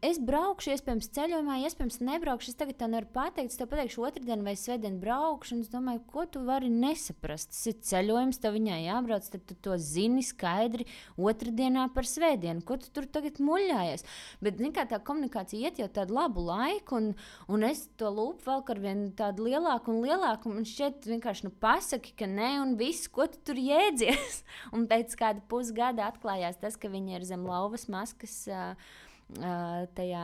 es braukšu, iespējams ceļojumā, iespējams nebraukšu, es tagad tā nevaru pateikt, es tev pateikšu otrdien vai svētdien braukšu, un es domāju, ko tu vari nesaprast, tas ir ceļojums, tev viņai jābrauc, tad tu to zini skaidri otrdienā par svētdienu, ko tu tur tagad muļājies, bet kā tā komunikācija iet jau tādu labu laiku, un es to lūpu vēl ar vien tādu lielāku un lielāku, un šķiet vienkārši pasaki, ka ne, un viss, ko tu tur jēdzies, un pēc kāda pusgada atklājās tas, ka viņa ir zem lauvas maskas tajā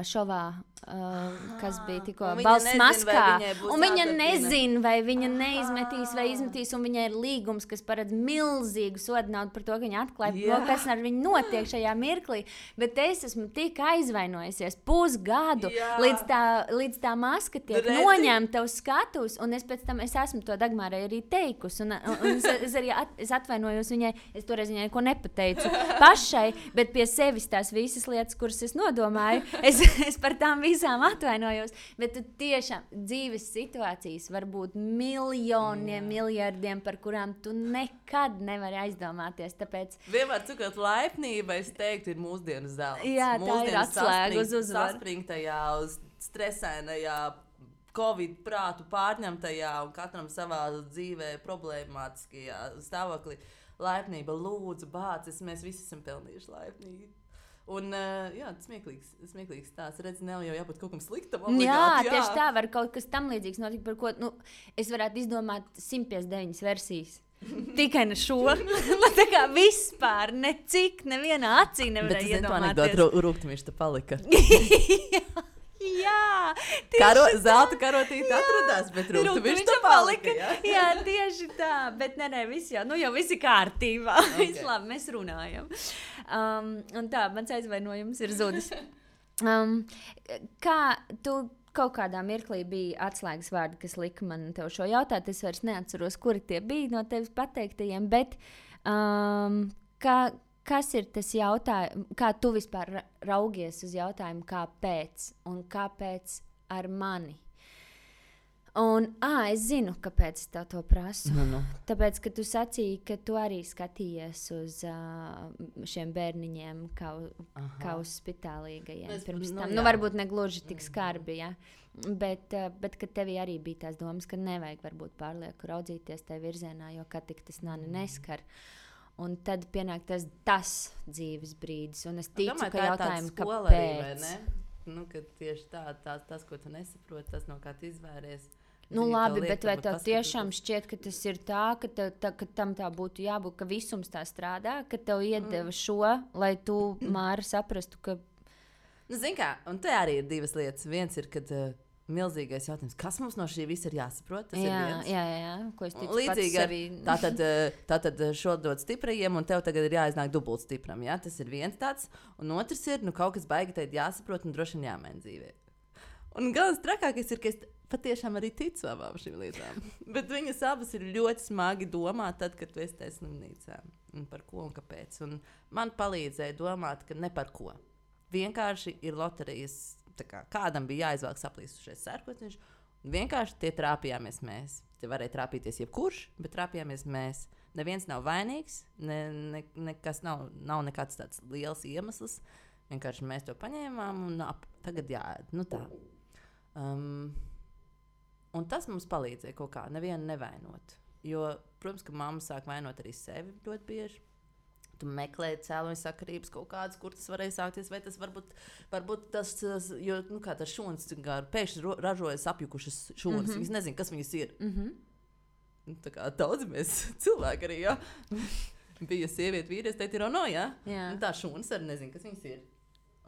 šovā, kas bija tikko balss maskā. Un viņa nezina, vai viņa neizmetīs vai izmetīs, un viņai ir līgums, kas paredz milzīgu sodu naudu par to, ka viņa atklāja, kas ar viņu notiek šajā mirklī. Bet es esmu tik aizvainojusies pusgadu, līdz tā maska tiek noņemta uz skatuves, un es pēc tam esmu to Dagmārai arī teikusi, un es atvainojos viņai, es toreiz viņai neko nepateicu pašai, bet pie sevis tās visas lietas, kuras es nodomāju, es par tām visām atvainojos, bet tu tiešām dzīves situācijas var būt miljoniem, miljardiem, par kurām tu nekad nevari aizdomāties. Tāpēc vienmēr cikot laipnība, es teiktu, ir mūsdienu zelts. Jā, tā ir atslēga uz uzvaru. Saspringtajā, uz stresainajā, Covid prātu pārņemtajā un katram savā dzīvē problemātiskajā stāvoklī. Laipnība, lūdzu, bācis, mēs visi esam pelnījuši laipnību. Un, jā, smieklīgs stāsts. Redz, nav jau jābūt kaut kam sliktam. Obligāti, jā, tieši tā var kaut kas tam līdzīgs notikt, par ko es varētu izdomāt 159 versijas. Tikai ne šo. Man tā kā vispār necik, nevienā acī nevarēja iedomāties. Bet es nezinu, rūgtumiši te palika. Jā, zelta karotīte atradās, bet rūgtumiši te palika. Jā, tieši tā. Bet nē, viss jau viss ir kārtībā. Okay. Viss labi, mēs runājam. Un tā, mans aizvainojums ir zudis. Kā tu kaut kādā mirklī bija atslēgas vārdi, kas lika man tev šo jautāt, es vairs neatceros, kuri tie bija no tevis pateiktajiem, bet kas ir tas jautājums, kā tu vispār raugies uz jautājumu, kāpēc un kāpēc ar mani? Un, es zinu, kāpēc es tev to prasu. Tāpēc, ka tu sacīji, ka tu arī skatījies uz šiem bērniņiem kā uz spitālīgajiem pirms tam. Varbūt ne gluži tik skarbi, ja? Bet ka tevī arī bija tās domas, ka nevajag varbūt pārlieku raudzīties tajā virzienā, jo kā tik tas nani neskar. Un tad pienāk tas dzīves brīdis. Un es ticu, ka jautājumu, kāpēc. Ka tieši tas, ko tu nesaproti, tas, no kā tu izvēries. Labi, bet vai tev tiešām šķiet, ka tas ir tā, ka tam tā būtu jābūt, ka visums tā strādā, ka tev iedeva šo, lai tu, Māra, saprastu, ka... Zini kā, un te arī ir divas lietas. Viens ir, kad... milzīgais jautājums, kas mums no šī visa ir jāsaprot? Tas ir viens. Jā, ko es ticu līdzīgi pats sevi. Tātad šo dod stiprajiem, un tev tagad ir jāiznāk dubult stipram. Ja? Tas ir viens tāds. Un otrs ir, kaut kas baigi teikt jāsaprot un droši vien jāmaina dzīvē. Un galvenais trakākais ir, ka es patiešām arī ticu abām šīm lietām. Bet viņas abas ir ļoti smagi domāt tad, kad tu esi tajā slimnīcā. Un par ko un kāpēc. Un man palīdzēja domāt, ka ne par ko. Vienkārši ir loterijas. Kādam bija jāizvelk saplīsušais sērkociņš, un vienkārši tie trāpījāmies mēs. Te varēja trāpīties jebkurš, bet trāpījāmies mēs. Neviens nav vainīgs, nekas nav nekāds tāds liels iemesls. Vienkārši mēs to paņēmām un tagad jāēd. Tā. Un tas mums palīdzēja kaut kā nevienu nevainot. Jo, protams, ka mamma sāk vainot arī sevi ļoti bieži. Tu meklē cēloņu sakarības kaut kādas, kur tas varēja sākties, vai tas varbūt tas, jo, kā tas šūnas, pēkšņi ražojas apjukušas šūnas, viņas nezin, kas viņas ir. Tā kā daudz mēs cilvēki arī, ja? Bija sieviete, vīrietis, teikt ir ono, ja? Tā šūnas arī nezin, kas viņas ir.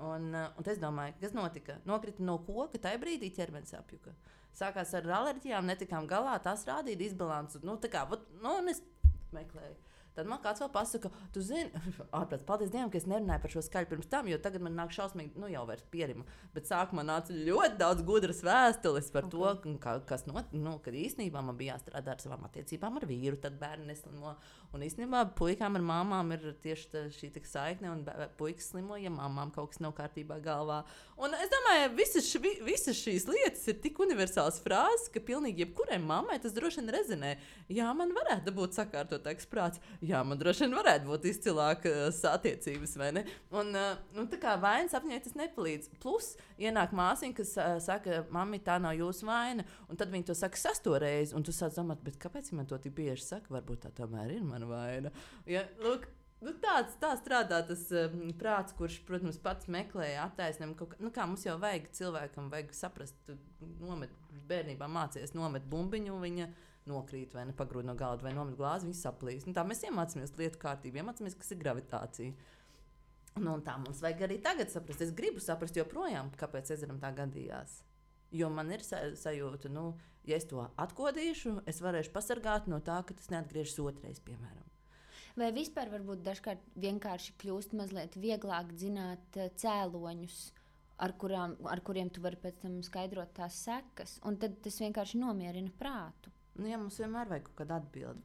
Un es domāju, kas notika? Nokrita no koka, tajā brīdī ķermenis apjuka. Sākās ar alerģijām, netikām galā, tās rādīja disbalansu. Un es meklēju. Tad man kāds vēl pasaka, tu zini, ārprāts, paldies Dievam, ka es nerunāju par šo skaļu pirms tam, jo tagad man nāk šausmīgi, jau vairs pierima. Bet sākumā nāca ļoti daudz gudras vēstules par to, kas kad īstenībā man bija jāstrādā ar savām attiecībām ar vīru, tad bērni neslimo. Un īstenībā puikām ar māmām ir tieši šī saikne, un puikas slimo, ja māmām kaut kas nav kārtībā galvā. Un es domāju, visas šīs lietas ir tik universāls frāzes, ka pilnīgi jebkurai mammai tas droši vien rezonē. Jā, man varētu būt sakārtotāks prāts. Jā, man droši vien varētu būt izcilākas attiecības, vai ne? Un tā kā vainas apņēmē tas nepalīdz. Plus, ienāk māsiņa, kas saka, mammi, tā nav jūsu vaina, un tad viņi to saka 6. reizi, un tu sāc domāt, bet kāpēc viņi man to tik bieži saka? Varbūt tā tomēr ir mana vaina. Ja, lūk, tā strādā tas prāts, kurš, protams, pats meklē attaisnojumu. Kā mums jau vajag cilvēkam, vajag saprast, tu bērnībā mācies nomet bumbiņu, viņa nokrīt vai nepagrūd no galda vai nomet glāzi, viņi saplīs. Tā mēs iemācāmies lietu kārtību, iemācāmies, kas ir gravitācija. Un tā mums vajag arī tagad saprast. Es gribu saprast joprojām, kāpēc ezeram tā gadījās. Jo man ir sajūta, ja es to atkodīšu, es varēšu pasargāt no tā, ka tas neatgriežas otrais, piemēram. Vai vispār varbūt dažkārt vienkārši kļūst mazliet vieglāk zināt cēloņus, ar kuriem tu vari pēc tam skaidrot tās sekas, un tad tas vienkārši nomierina prātu? Jā, mums vienmēr vajag kaut kādu atbildi.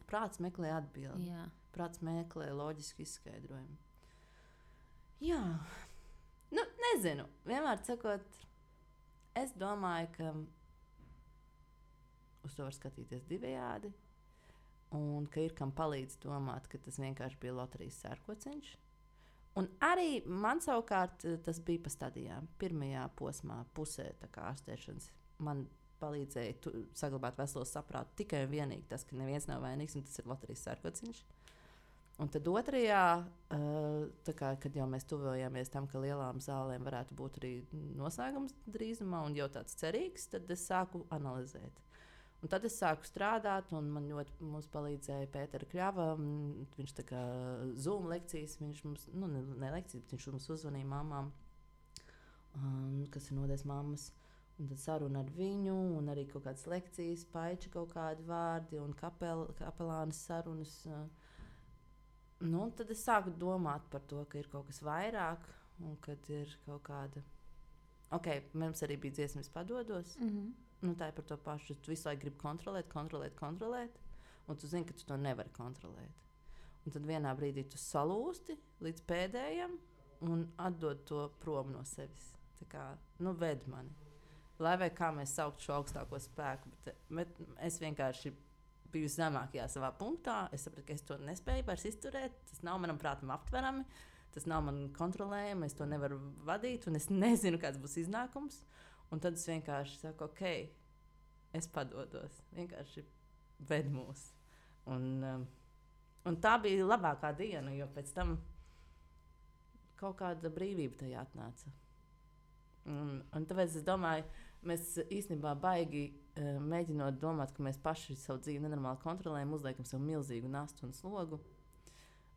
Prāts meklē atbildi. Jā. Prāts meklē loģisku izskaidrojumu. Jā. Nu, nezinu. Vienmēr sakot, es domāju, ka uz to var skatīties divējādi. Un ka ir kam palīdz domāt, ka tas vienkārši bija loterijas sērkociņš. Un arī man savukārt tas bija pa stadijām. Pirmajā posmā, pusē ārstēšanas, man palīdzēja saglabāt veselo saprātu tikai un vienīgi tas, ka neviens nav vainīgs, un tas ir loterijas sērkociņš. Un tad otrajā, kad jau mēs tuvojāmies tam, ka lielām zālēm varētu būt arī noslēgums drīzumā un jau tāds cerīgs, tad es sāku analizēt. Un tad es sāku strādāt, un man ļoti palīdzēja Pētera Kļava. Viņš tā kā Zoom lekcijas, viņš mums, ne lekcijas, bet viņš mums uzvanīja mamām, kas ir nodēs mammas. Un tad saruna ar viņu, un arī kaut kādas lekcijas, paiči kaut kādi vārdi, un kapelānas sarunas. Tad es sāku domāt par to, ka ir kaut kas vairāk, un kad ir kaut kāda... Ok, mums arī bija dziesmas padodos. Tā ir par to pašu. Tu visu laiku gribi kontrolēt, un tu zini, ka tu to nevari kontrolēt. Un tad vienā brīdī tu salūsti līdz pēdējam un atdod to prom no sevis. Tā kā, ved mani. Lai vai kā mēs sauktu šo augstāko spēku, bet es vienkārši biju zemākajā savā punktā. Es sapratu, ka es to nespēju vairs izturēt. Tas nav manam prātam aptverami, tas nav man kontrolējami, es to nevaru vadīt, un es nezinu, kāds būs iznākums. Un tad es vienkārši saku, ok, es padodos. Vienkārši ved mūs. Un tā bija labākā diena, jo pēc tam kaut kāda brīvība tajā atnāca. Un tāpēc es domāju, mēs īstenībā baigi mēģinot domāt, ka mēs paši savu dzīvi nenormāli kontrolējam, uzliekam sev milzīgu nastu un slogu.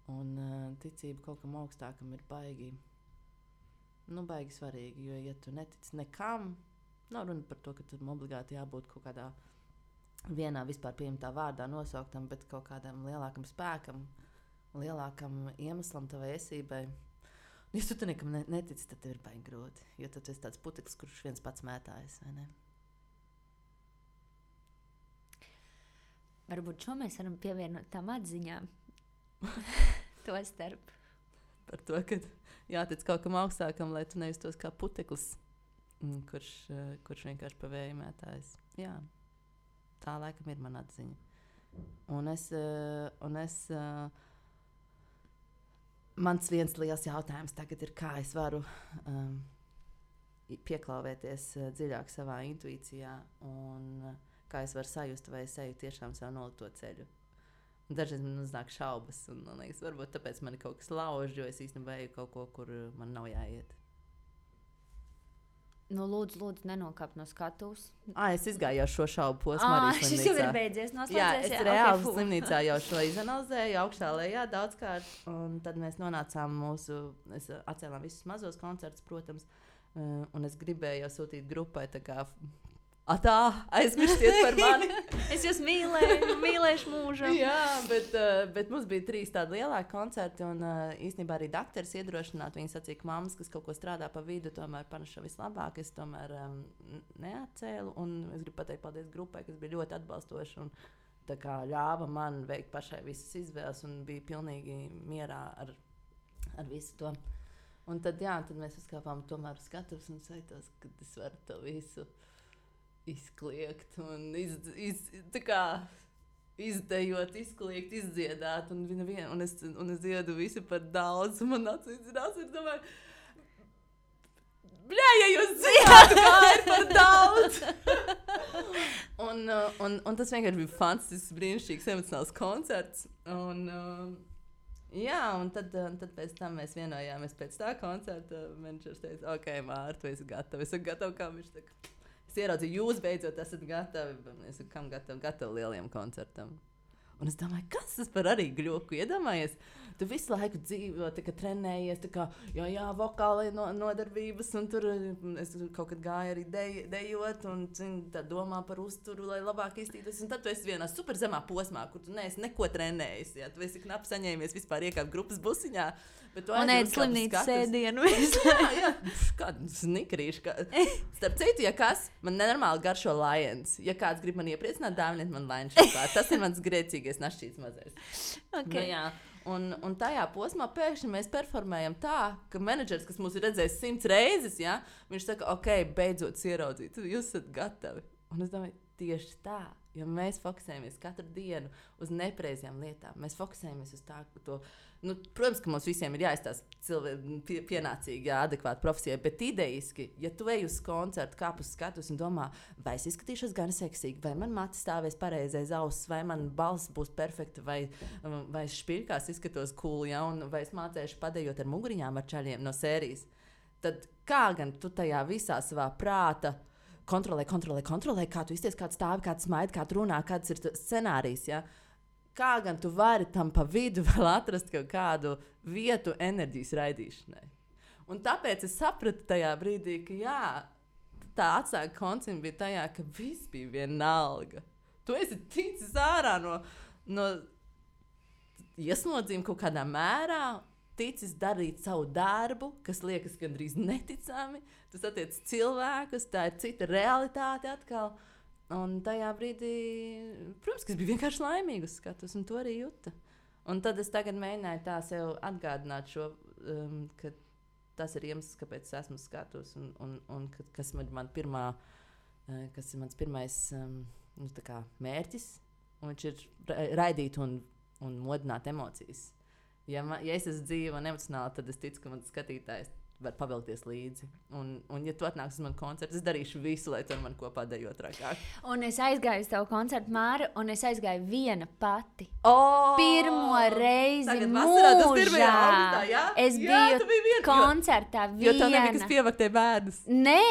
Un ticība kaut kam augstākam ir baigi svarīgi, jo, ja tu netici nekam, nav runa par to, ka tur obligāti jābūt kaut kādā vienā vispār pieņemtā vārdā nosauktam, bet kaut kādam lielākam spēkam, lielākam iemeslam tavai esībai. Ja tu nekam netici, tad tev ir baigi grūti, jo tad tu esi tāds puteklis, kurš viens pats mētājas, vai ne? Varbūt šo mēs varam pievienot tām atziņām. To starp. Par to, ka jātic kaut kam augstākam, lai tu nejustos kā puteklis, kurš vienkārši pa vēju mētājas. Jā, tā laikam ir mana atziņa. Mans viens liels jautājums tagad ir, kā es varu pieklāvēties dziļāk savā intuīcijā un kā es varu sajust, vai es eju tiešām savu nolikto ceļu. Dažreiz man uznāk šaubas, un man liekas, varbūt tāpēc man kaut kas lauž, jo es īstenībā eju kaut ko, kur man nav jāiet. Lūdzu, nenokāp no skatuves. Es izgāju jau šo šaubu posmu arī slimnīcā. Šis jau ir beidzies, noslēdzies. Jā, es reāli slimnīcā jau šo izanalizēju, augšā lejā daudzkārt, un tad mēs nonācām mēs atcēlām visus mazos koncertus, protams, un es gribēju jau sūtīt grupai tā kā... aizmirstiet par mani. Es jūs mīlēšu mūžam. Jā, bet mums bija 3 tādi lielāki koncerti, un īstenībā arī dakteris iedrošināt. Viņi sacīja, ka mammas, kas kaut ko strādā pa vidu, tomēr paneša vislabāk. Es tomēr neatcēlu, un es gribu pateikt paldies grupai, kas bija ļoti atbalstoši un tā kā ļāva man veikt pašai visas izvēles un bija pilnīgi mierā ar visu to. Un tad mēs uzkāpām tomēr uz skatuves un sajūtos, ka es varu to visu izkliegt un izdejot, izkliegt, izdziedāt, un es dziedu visu par daudz, un man atcīdzinās, ir domāju, ja jūs zināt, kā ir par daudz! un tas vienkārši bija fantastisks, brīnišķīgs, emocionāls koncerts, un tad pēc tam mēs vienojāmies pēc tā koncerta, menedžers teica, ok, Māra, tu esi gatava, kā viņš tā. Es ieraudzīju, jūs beidzot esat gatavi. Es saku, kam gatavi lieliem koncertam. Un es domāju, kas tas par arī gļoku? Iedomājies, tu visu laiku dzīvo, trenējies, vokālai nodarbības, un tur es kaut kad gāju arī dejot, un tā domā par uzturu, lai labāk iztītos. Un tad tu esi vienā super zemā posmā, kur tu neesi neko trenējis. Ja? Tu esi knapi saņēmies vispār iekāpt grupas busiņā. Un ēd slimnīcas sēdienu. Jā, kādu snikrīšu. Starp citu, ja kas, man nenormāli garšo Lions. Ja kāds grib man iepriecināt, dāviniet man Lions šokolādi. Tas ir mans grēcīgais našķīts mazais. Okay. Un tajā posmā pēkšņi mēs performējam tā, ka menedžers, kas mūs ir redzējis 100 reizes, ja, viņš saka, ok, beidzot ieraudzīt, jūs esat gatavi. Un es domāju, tieši tā, jo mēs fokusējamies katru dienu uz nepareizajām lietām. Mēs fokusējamies uz to. Nu, protams, ka mums visiem ir jāizstāsta pienācīgi, adekvāti profesijai, bet idejiski, ja tu ej uz koncertu, kāp uz skatus un domā, vai es izskatīšos gan seksīgi, vai man mati stāvēs pareizais auss, vai man balss būs perfekta, vai špirkās izskatos cool, ja, un vai es mācēšu padējot ar muguriņām ar čaļiem no sērijas, tad kā gan tu tajā visā savā prāta kontrolē, kā tu izties, kā tu stāvi, kā tu smaidi, kā tu runā, kāds ir scenārijs, ja? Kā gan tu vari tam pa vidu vēl atrast kaut kādu vietu enerģijas raidīšanai. Un tāpēc es sapratu tajā brīdī, ka jā, tā atslēga koncepta bija tajā, ka viss bija vienalga. Tu esi ticis ārā no ieslodzījuma kaut kādā mērā, ticis darīt savu darbu, kas liekas gandrīz neticami. Tu satiec cilvēkus, tā ir cita realitāte atkal. Un tajā brīdī, protams, ka es biju vienkārši laimīga uz skatus, un to arī jūtu. Un tad es tagad mēģināju tā sev atgādināt šo, ka tas ir iemesls, kāpēc es esmu skatus, un kas ir mans pirmais tā kā mērķis, un viņš ir raidīt un modināt emocijas. Ja es esmu dzīva un emocionāli, tad es ticu, ka mans skatītājs var pavilkties līdzi. Un ja tu atnāks uz manu koncertu, es darīšu visu, lai tu ar mani kopā dejot trakāk. Un es aizgāju uz tavu koncertu, Māra, un es aizgāju viena pati. Pirmo reizi mūžā. Es biju koncertā viena. Jo tev nebija kas pievaktēja bērnus. Nē,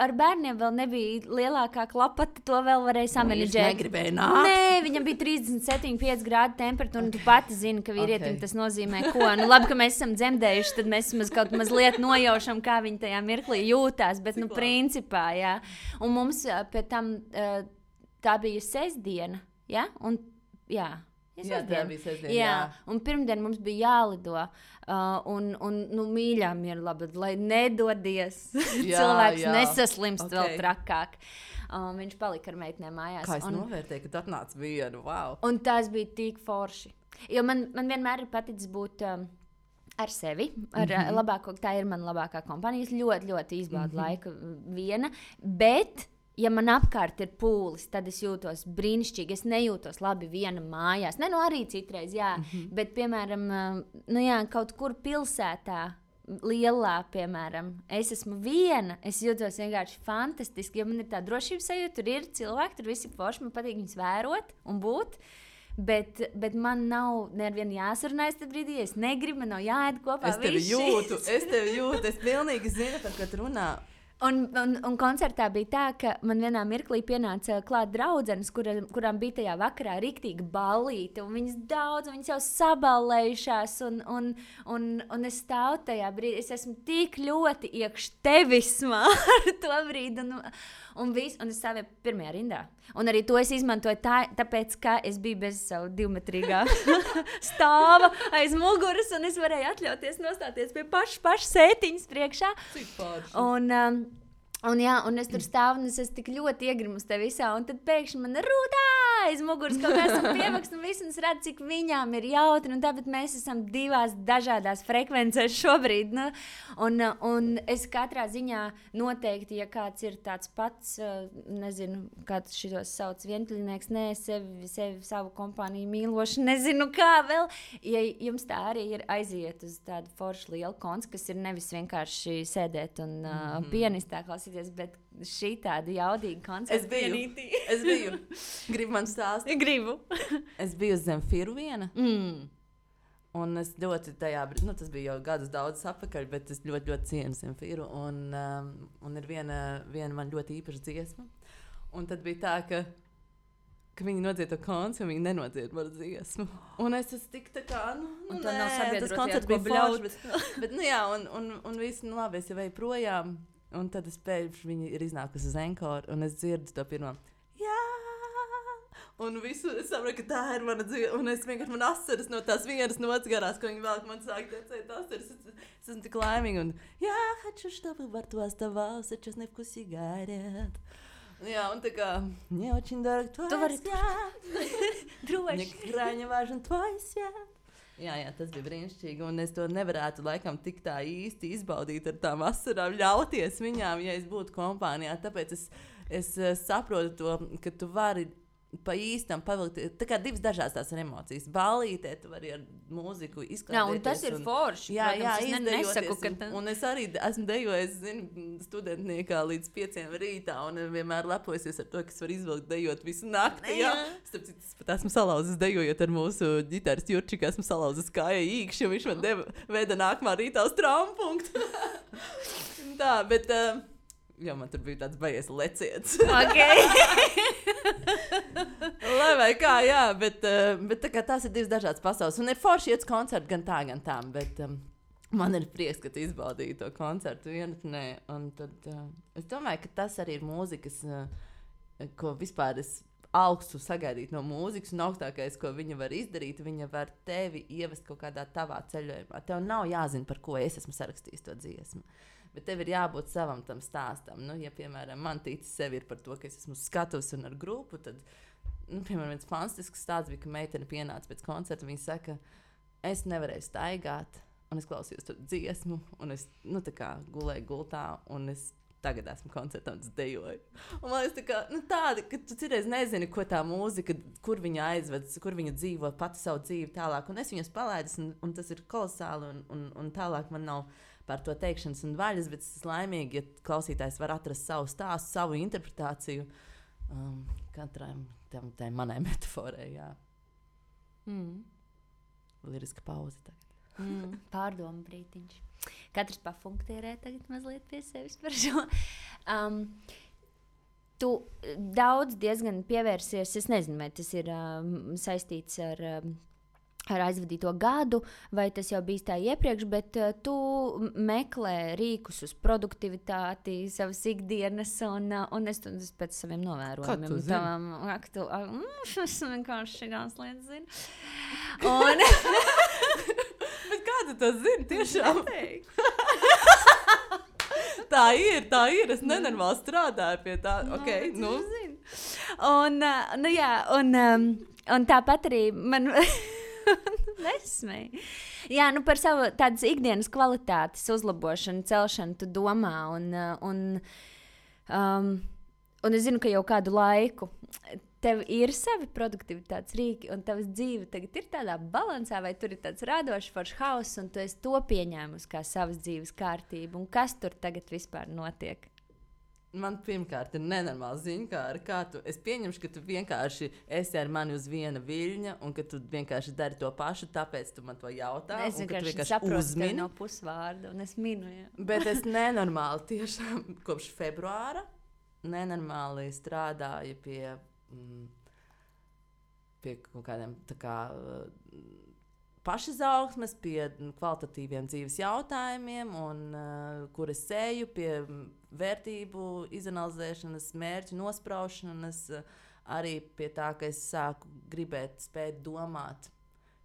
ar bērniem vēl nebija lielākā klapata, to vēl varēja samanedžēt. Viņš negribēja nākt. Nē, viņam bija 37,5 grādu temperatūra, un tu pati zini, ka vīrietim tas nozīmē ko. Nu, labi, ka mēs esam dzemdējuši, tad mēs kaut mazliet nojaušam, kā viņi tajā mirklī jūtās, bet, principā, jā. Un mums pēc tam tā bija sestdiena, jā? Un, jā. Jā, tā bija sestdiena, jā. Un pirmdien mums bija jālido, nu, mīļām ir labi, lai nedodies. Cilvēks nesaslimst vēl trakāk. Viņš palika ar meitnēm mājās. Kā es novērtēju, ka tu atnāc vienu, wow. Un tas bija tik forši. Jo man vienmēr ir paticis būt ar sevi, labāko, tā ir mana labākā kompānija. Es ļoti, ļoti izbaudu laiku viena, bet, ja man apkārt ir pūlis, tad es jūtos brīnišķīgi. Es nejūtos labi viena mājās. Ne, nu arī citreiz, jā, bet, piemēram, nu jā, kaut kur pilsētā, lielā, piemēram, es esmu viena, es jūtos vienkārši fantastiski, jo man ir tā drošības sajūta, tur ir cilvēki, tur visi forši, man patīk viņus vērot un būt. Bet man nav nevienu jāsarunājas tajā brīdī, es negribu, man nav jāēd kopā. Es tevi jūtu, es pilnīgi zinu, par ko tu runā. Un koncertā bija tā, ka man vienā mirklī pienāca klāt draudzenes, kurām bija tajā vakarā riktīga ballīte, un viņas daudz, viņas jau saballējušās, un es stāvu tajā brīdī, es esmu tik ļoti iekš tevismā ar to brīdi, un es stāvēju pirmajā rindā. Un arī to es izmantoju tāpēc, ka es biju bez savu 2-metrīgā stāva aiz muguras, un es varēju atļauties nostāties pie paša sētiņas priekšā. Cik forši. Un es tur stāvu, un es esmu tik ļoti iegrimu uz te visā, un tad pēkšņi man rūtā aiz muguras kaut kā esam pievakst, un viss, un es redzu, cik viņām ir jautri, un tāpēc mēs esam divās dažādās frekvencēs šobrīd, nu, un es katrā ziņā noteikti, ja kāds ir tāds pats, nezinu, kāds šitos sauc vientuļnieks, nē, sevi savu kompāniju mīloši, nezinu kā vēl, ja jums tā arī ir aiziet uz tādu foršu lielu koncertu, kas ir nevis vienkārši sēdēt un pianistā klausīties, bet šī tāda jaudīga koncerta. Es biju. Gribu man stāstīt? Gribu. Es biju uz Zemfīru viena. Un es ļoti tajā brīdī, nu tas bija jau gadus daudz atpakaļ, bet es ļoti, ļoti cienu Zemfīru. Un ir viena man ļoti īpaša dziesma. Un tad bija tā, ka viņi nodzied to koncertu, un viņi nenodzied manu dziesmu. Un es esmu tik tā kā, un tā nav sabiedroties, tas koncerts bija bļauts. Bet, nu jā, un viss, nu labi, es jau eju projām. Un tad es pēkšņi viņi ir iznākusi uz Enkoru, un es dzirdu to pirmo. Jā! Un visu es saprotu, ka tā ir mana dzīve. Un es vienkārši man asaras no tās vienas nots garās, ko viņi vēl man sāk tecēt asaras. Es esmu tik laimīga. Un я хочу, чтобы во рту оставался честный вкус сигарет. Jā, un tā kā, мне очень дорог твой свет. Droši. Мне крайне важен твой свет. Jā, tas bija brīnišķīgi, un es to nevarētu laikam tik tā īsti izbaudīt ar tām asarām, ļauties viņām, ja es būtu kompānijā. Tāpēc es saprotu to, ka tu vari pa īstam pavilkt. Tā kā divas dažādas tās emocijas. Ballītē tu vari ar mūziku izklaidēties. Jā, un tas ir forši. Jā, nesaku, ka un es arī esmu dejojis, studentniekā līdz 5 rītā, un vienmēr lepojusies ar to, ka es varu izvilkt dejot visu nakti. Jā. Starp citu, es pat esmu salauzis dejojot ar mūsu ģitāristu Jurčiku, esmu salauzis kāja īkšķi, un viņš man veda nākamā rītā uz traumapunktu. Tā, bet... Jā, man tur bija tāds baies leciets. Lai vai kā, jā, bet tā kā tās ir divas dažādas pasaules. Un ir forši iet uz koncertu gan tā, gan tā. Bet man ir prieks, ka tu izbaudīji to koncertu vienatnē. Un tad es domāju, ka tas arī ir mūzikas, ko vispār es augstu sagaidīt no mūzikas. Un augstākais, ko viņa var izdarīt, viņa var tevi ievest kaut kādā tavā ceļojumā. Tev nav jāzina, par ko es esmu sarakstījis to dziesmu. Bet tev ir jābūt savam tam stāstam. Nu, ja, piemēram, man ticis sevi ir par to, ka es esmu skatus un ar grupu, tad, piemēram, viens fantastisks stāsts bija, ka meitene pienāca pēc koncerta, viņa saka, es nevarēju staigāt, un es klausījos to dziesmu, un es, tā kā gulēju gultā, un es tagad esmu koncertā un es dejoju. Un man liekas, tā kā, tādi, ka tu citreiz nezini, ko tā mūzika, kur viņa aizved, kur viņa dzīvo pati savu dzīvi tālāk, un es viņas palaidis, un tas ir kolosāli, un tālāk man nav par to teikšanas un vaļas, bet es esmu laimīgi, ja klausītājs var atrast savu stāstu, savu interpretāciju katrai tai manai metaforai, jā. Liriska pauze tagad. Pārdomu brītiņš. Katrs pafunktierē tagad mazliet pie sevis par šo. Tu daudz diezgan pievērsies, es nezinu, vai tas ir saistīts ar aizvadīto gadu, vai tas jau bijis tā iepriekš, bet tu meklē rīkus uz produktivitāti, savas ikdienas, un es pēc saviem novērojumiem. Kā tu zini? Es vienkārši šīs lietas zinu. Un... Bet kā tu to zini? Tiešām? Tā ir. Es nenormāli strādāju pie tā. Okay, nu. Un tāpat arī man... Nesmēji. Jā, par savu tādas ikdienas kvalitātes uzlabošanu, celšanu tu domā, un es zinu, ka jau kādu laiku tev ir savi produktivitātes rīki, un tavas dzīve tagad ir tādā balansā, vai tur ir tāds radošs foršs hauss, un tu esi to pieņēmusi kā savas dzīves kārtību, un kas tur tagad vispār notiek? Man pirmkārt ir nenormāli ziņkāri, kā tu, es pieņemšu, ka tu vienkārši esi ar mani uz viena viļņa, un ka tu vienkārši dari to pašu, tāpēc tu man to jautā. Es vienkārši saprotu tevi no pusvārda, un es minu, jā. Bet es nenormāli tiešām kopš februāra nenormāli strādāju pie kaut kādiem tā kā pašizaugsmes, pie kvalitatīviem dzīves jautājumiem, un kur es eju pie vērtību izanalizēšanas, mērķu nospraušanas, arī pie tā, ka es sāku gribēt spēt domāt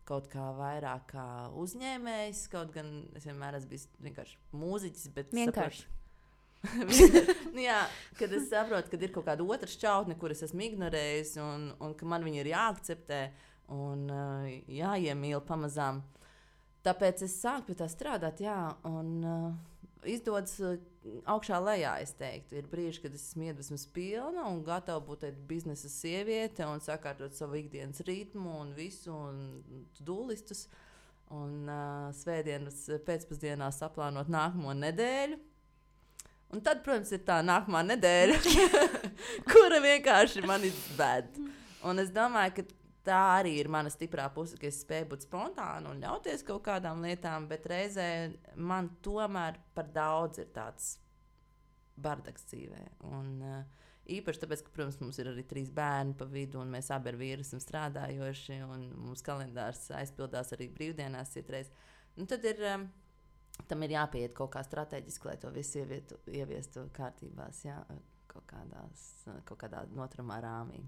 kaut kā vairāk kā uzņēmējs, kaut gan es vienmēr esmu bijis vienkārši mūziķis, bet vienkārši. Jā, kad es saprotu, ka ir kaut kāda otra šķautne, kuras esmu ignorējis, un ka man viņa ir jāakceptē un jāiemīl pamazām. Tāpēc es sāku pie tā strādāt, jā, un izdodas augšā lejā, es teiktu. Ir brīži, kad es esmu iedvesmas pilna un gatava būt biznesa sieviete un sakārtot savu ikdienas ritmu un visu, un dūlistus. Un svētdienas pēcpusdienā saplānot nākamo nedēļu. Un tad, protams, ir tā nākamā nedēļa, kura vienkārši mani ved. Un es domāju, ka tā arī ir mana stiprā puse, ka es spēju būt spontāna un ļauties kaut kādām lietām, bet reizē man tomēr par daudz ir tāds bardaks dzīvē. Un īpaši tāpēc, ka, protams, mums ir arī 3 bērni pa vidu, un mēs abi ar vīru esam strādājoši, un mums kalendārs aizpildās arī brīvdienās citreiz. Un tad tam ir jāpieiet kaut kā strateģiski, lai to visu ieviestu kārtībās, jā, kaut kādā noturumā rāmī.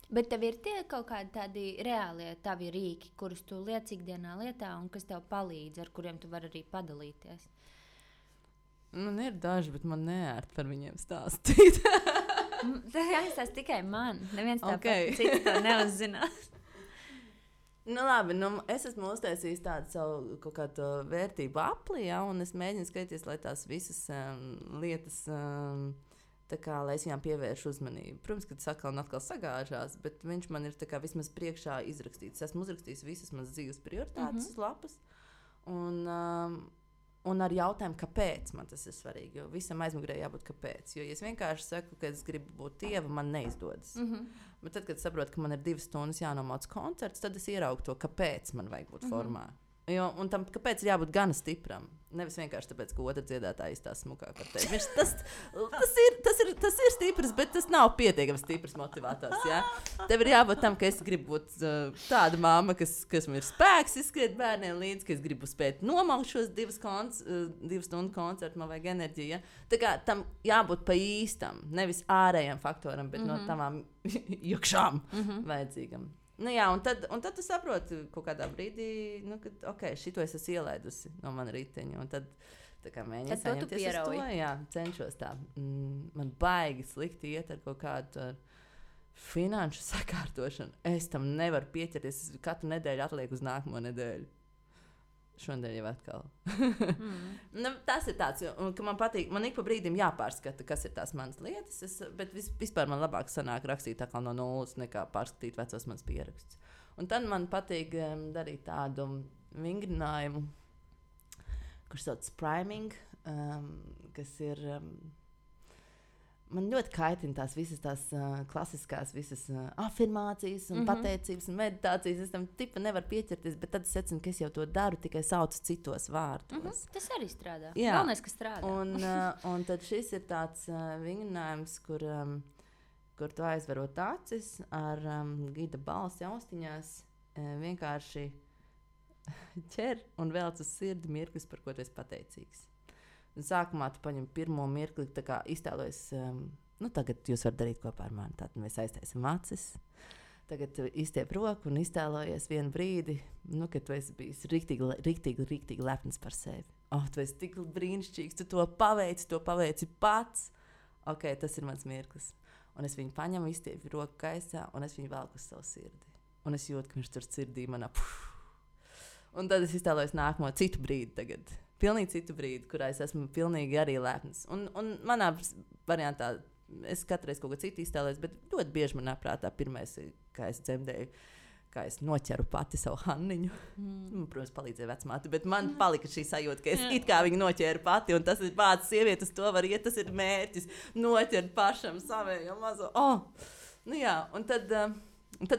Bet tev ir tie kaut kādi tādi reālie tavi rīki, kurus tu liec ikdienā lietā un kas tev palīdz, ar kuriem tu vari arī padalīties? Man ir daži, bet man neērt par viņiem stāstīt. Tas jāizstāst tikai man. Neviens tāpat cits to neuzzinās. Nu, labi, es esmu uztaisījis tādu savu kaut kādu vērtību apli, ja, un es mēģinu skatīties, lai tās visas lietas, tā kā, lai es viņām pievēršu uzmanību. Protams, ka tas atkal sagāžās, bet viņš man ir tā kā vismaz priekšā izrakstīts. Es esmu uzrakstījis visas manas dzīves prioritātes uz lapas, un ar jautājumu, kāpēc man tas ir svarīgi. Jo visam aizmugurē jābūt kāpēc. Jo, ja es vienkārši saku, ka es gribu būt tieva, man neizdodas. Bet tad, kad saprotu, ka man ir 2 stundas jānomāc koncerts, tad es ieraugu to, kāpēc man vajag būt formā. Jo, un tam, kāpēc ir jābūt gan stipram? Nevis vienkārši tāpēc, ka otra dziedātāja izstāsta smukāk par tevi. Tas ir stiprs, bet tas nav pietiekami stiprs motivators. Ja? Tev ir jābūt tam, ka es gribu būt tāda mamma, kas man ir spēks izskriet bērniem līdzi, ka es gribu spēt nomaukt šos 2 stundu koncertu, man vajag enerģiju. Ja? Tā kā tam jābūt pa īstam, nevis ārējam faktoram, bet no tavām iekšām vajadzīgam. Nu jā, un tad tu saproti kaut kādā brīdī, ka šito es esmu ielaidusi no mana riteņa. Un tad mēģinu saņemties uz to. Jā, cenšos tā. Man baigi slikti iet ar kaut kādu finanšu sakārtošanu. Es tam nevaru pieķerties. Es katru nedēļu atlieku uz nākamo nedēļu. Šodien jau atkal. Tas ir tāds, ka man patīk. Man ik pa brīdim jāpārskata, kas ir tās manas lietas. Bet vispār man labāk sanāk rakstīt atkal no nulles, nekā pārskatīt vecos manas pierakstus. Un tad man patīk darīt tādu vingrinājumu, kurš sauc priming, kas ir. Man ļoti kaitina tās visas tās klasiskās afirmācijas un pateicības un meditācijas. Es tam tipa nevaru pieķerties, bet tad es secinu, ka es jau to daru, tikai saucu citos vārdos. Tas arī strādā. Galvenais, ka strādā. Un tad šis ir tāds vingrinājums, kur tu aizverot acis ar gida balsi austiņās, vienkārši ķer un velc uz sirdi mirklis, par ko tu esi pateicīgs. Un sākumā tu paņem pirmo mirkli, tā kā iztēlojies, tagad jūs varat darīt kopā ar mani. Tātad mēs aiztaisam acis. Tagad tu izstiep roku un iztēlojies vienu brīdi, kad tu esi bijis riktīgi lepns par sevi. Tu esi tik brīnišķīgs, tu to paveici pats. Tas ir mans mirklis. Un es viņu paņemu, izstiepu roku gaisā, un es viņu velku uz savu sirdi. Un es jūtu, ka viņš tur sirdī manā. Un tad es iztēlojos nākamo citu brīdi tagad. Pilnīgi citu brīdi, kurā es esmu pilnīgi arī lepns. Un manā variantā es katru reizi kaut ko citu iztēlojos, bet ļoti bieži manā prātā pirmais, kā es dzemdēju, kā es noķeru pati savu Hanniņu. Protams, palīdzēja vecmāte, bet man palika šī sajūta, ka es it kā viņu noķēru pati, un tas ir pats sievietes, to var iet, tas ir mērķis, noķert pašam savējo mazo. Jā, un tad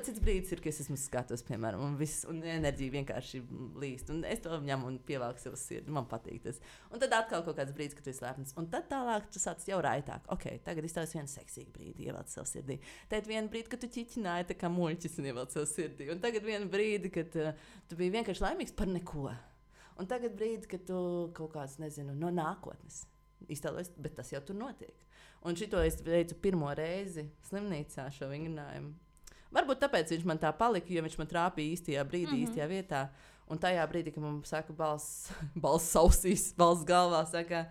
cits brīdis ir, ka es esmu skatos, piemēram, un enerģija vienkārši līst. Un es to ņemu un pievelku sev sirdi. Man patīk tas. Un tad atkal kaut kāds brīdis, kad tu esi lepns. Un tad tālāk tu sāc jau raitāk. Tagad iztaujas vienu seksīgu brīdi, ievelc sev sirdī. Tad vienu brīdi, kad tu ķiķināji tā kā muļķis un ievelc sev sirdī. Un tagad vienu brīdi, kad tu biji vienkārši laimīgs par neko. Un tagad brīdi, kad tu kaut kāds, nezinu, no nākotnes iztēlojies, bet tas jau tur notiek. Un šito es veicu pirmo reizi slimnīcā šo vingrinājumu. Varbūt tāpēc viņš man tā palika, jo viņš man trāpīja īstajā brīdī, īstajā vietā. Un tajā brīdī, kad man saka balss sausīs, balss galvā, saka,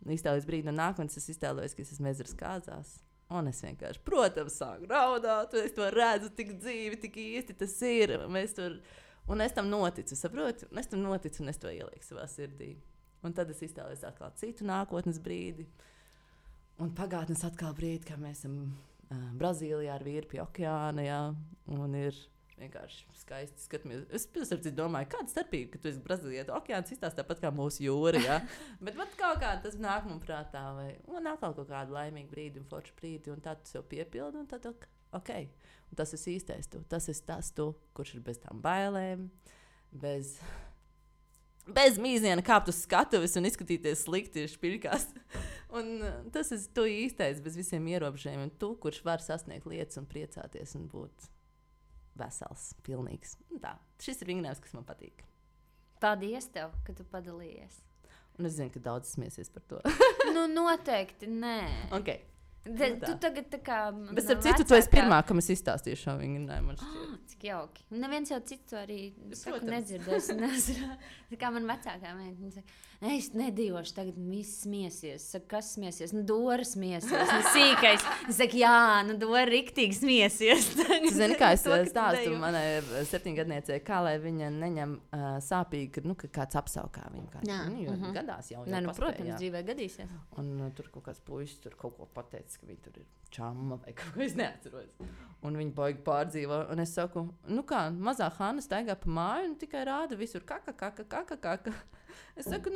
iztēlojas brīdi no nākotnes, es iztēlojos, ka es esmu ezeras kāzās. Un es vienkārši, protams, sāku raudāt, es to redzu tik dzīvi, tik īsti tas ir. Un es tam noticu, saproti? Un es tam noticu, un es to ielieku savā sirdī. Un tad es iztēlojos atkal citu nākotnes brīdi. Un pagātnes atkal brīdi, kā mēs esam Brazīlijā ar vīru pie okeāna, jā, un ir vienkārši skaisti skatāmies. Es domāju, kāda starpība, ka tu esi Brazīlijā. Okeāns izstāsta tāpat kā mūsu jūra, jā. Bet kaut kā tas nāk man prātā, un atkal kaut kādu laimīgu brīdi un foršu brīdi, un tad tu sev piepildi, un tad Un tas ir īstais tu. Tas ir tas tu, kurš ir bez tām bailēm, bez mīziena kāpt uz skatuves un izskatīties slikti špilkās. Un tas ir tu īstais, bez visiem ierobežojumiem. Tu, kurš var sasniegt lietas un priecāties un būt vesels, pilnīgs. Un tā, šis ir vingrinājums, kas man patīk. Paldies tev, ka tu padalījies. Un es zinu, ka daudz smiesies par to. Noteikti nē. Tu tagad tā kā... Bet ar citu, tu esi pirmā, kam es izstāstīju šo vingrinējumu, man šķiet. Cik jauki. Un neviens jau citu arī saku nedzirdēs. Tā kā man vecākā meita, viņa saka, es nedīvošu, tagad viss smiesies. Saka, kas smiesies? Dora smiesies. Sīkais. Es saku, jā, Dora riktīgi smiesies. Tu zini, kā es stāstu manai 7-gadniecei, kā lai viņa neņem sāpīgi, ka kāds apsaukā viņu. Jo gadās jau paspēja. Protams, dzīvē gadīsies. Un tur kaut kāds puisis tur kaut ko pateicis, ka viņi tur ir čamma vai kaut ko, es neatceros. Un viņi baigi pārdzīvo. Un es saku, kā, mazā Hanna staigā pa māju un tikai rāda visur kaka. Es saku,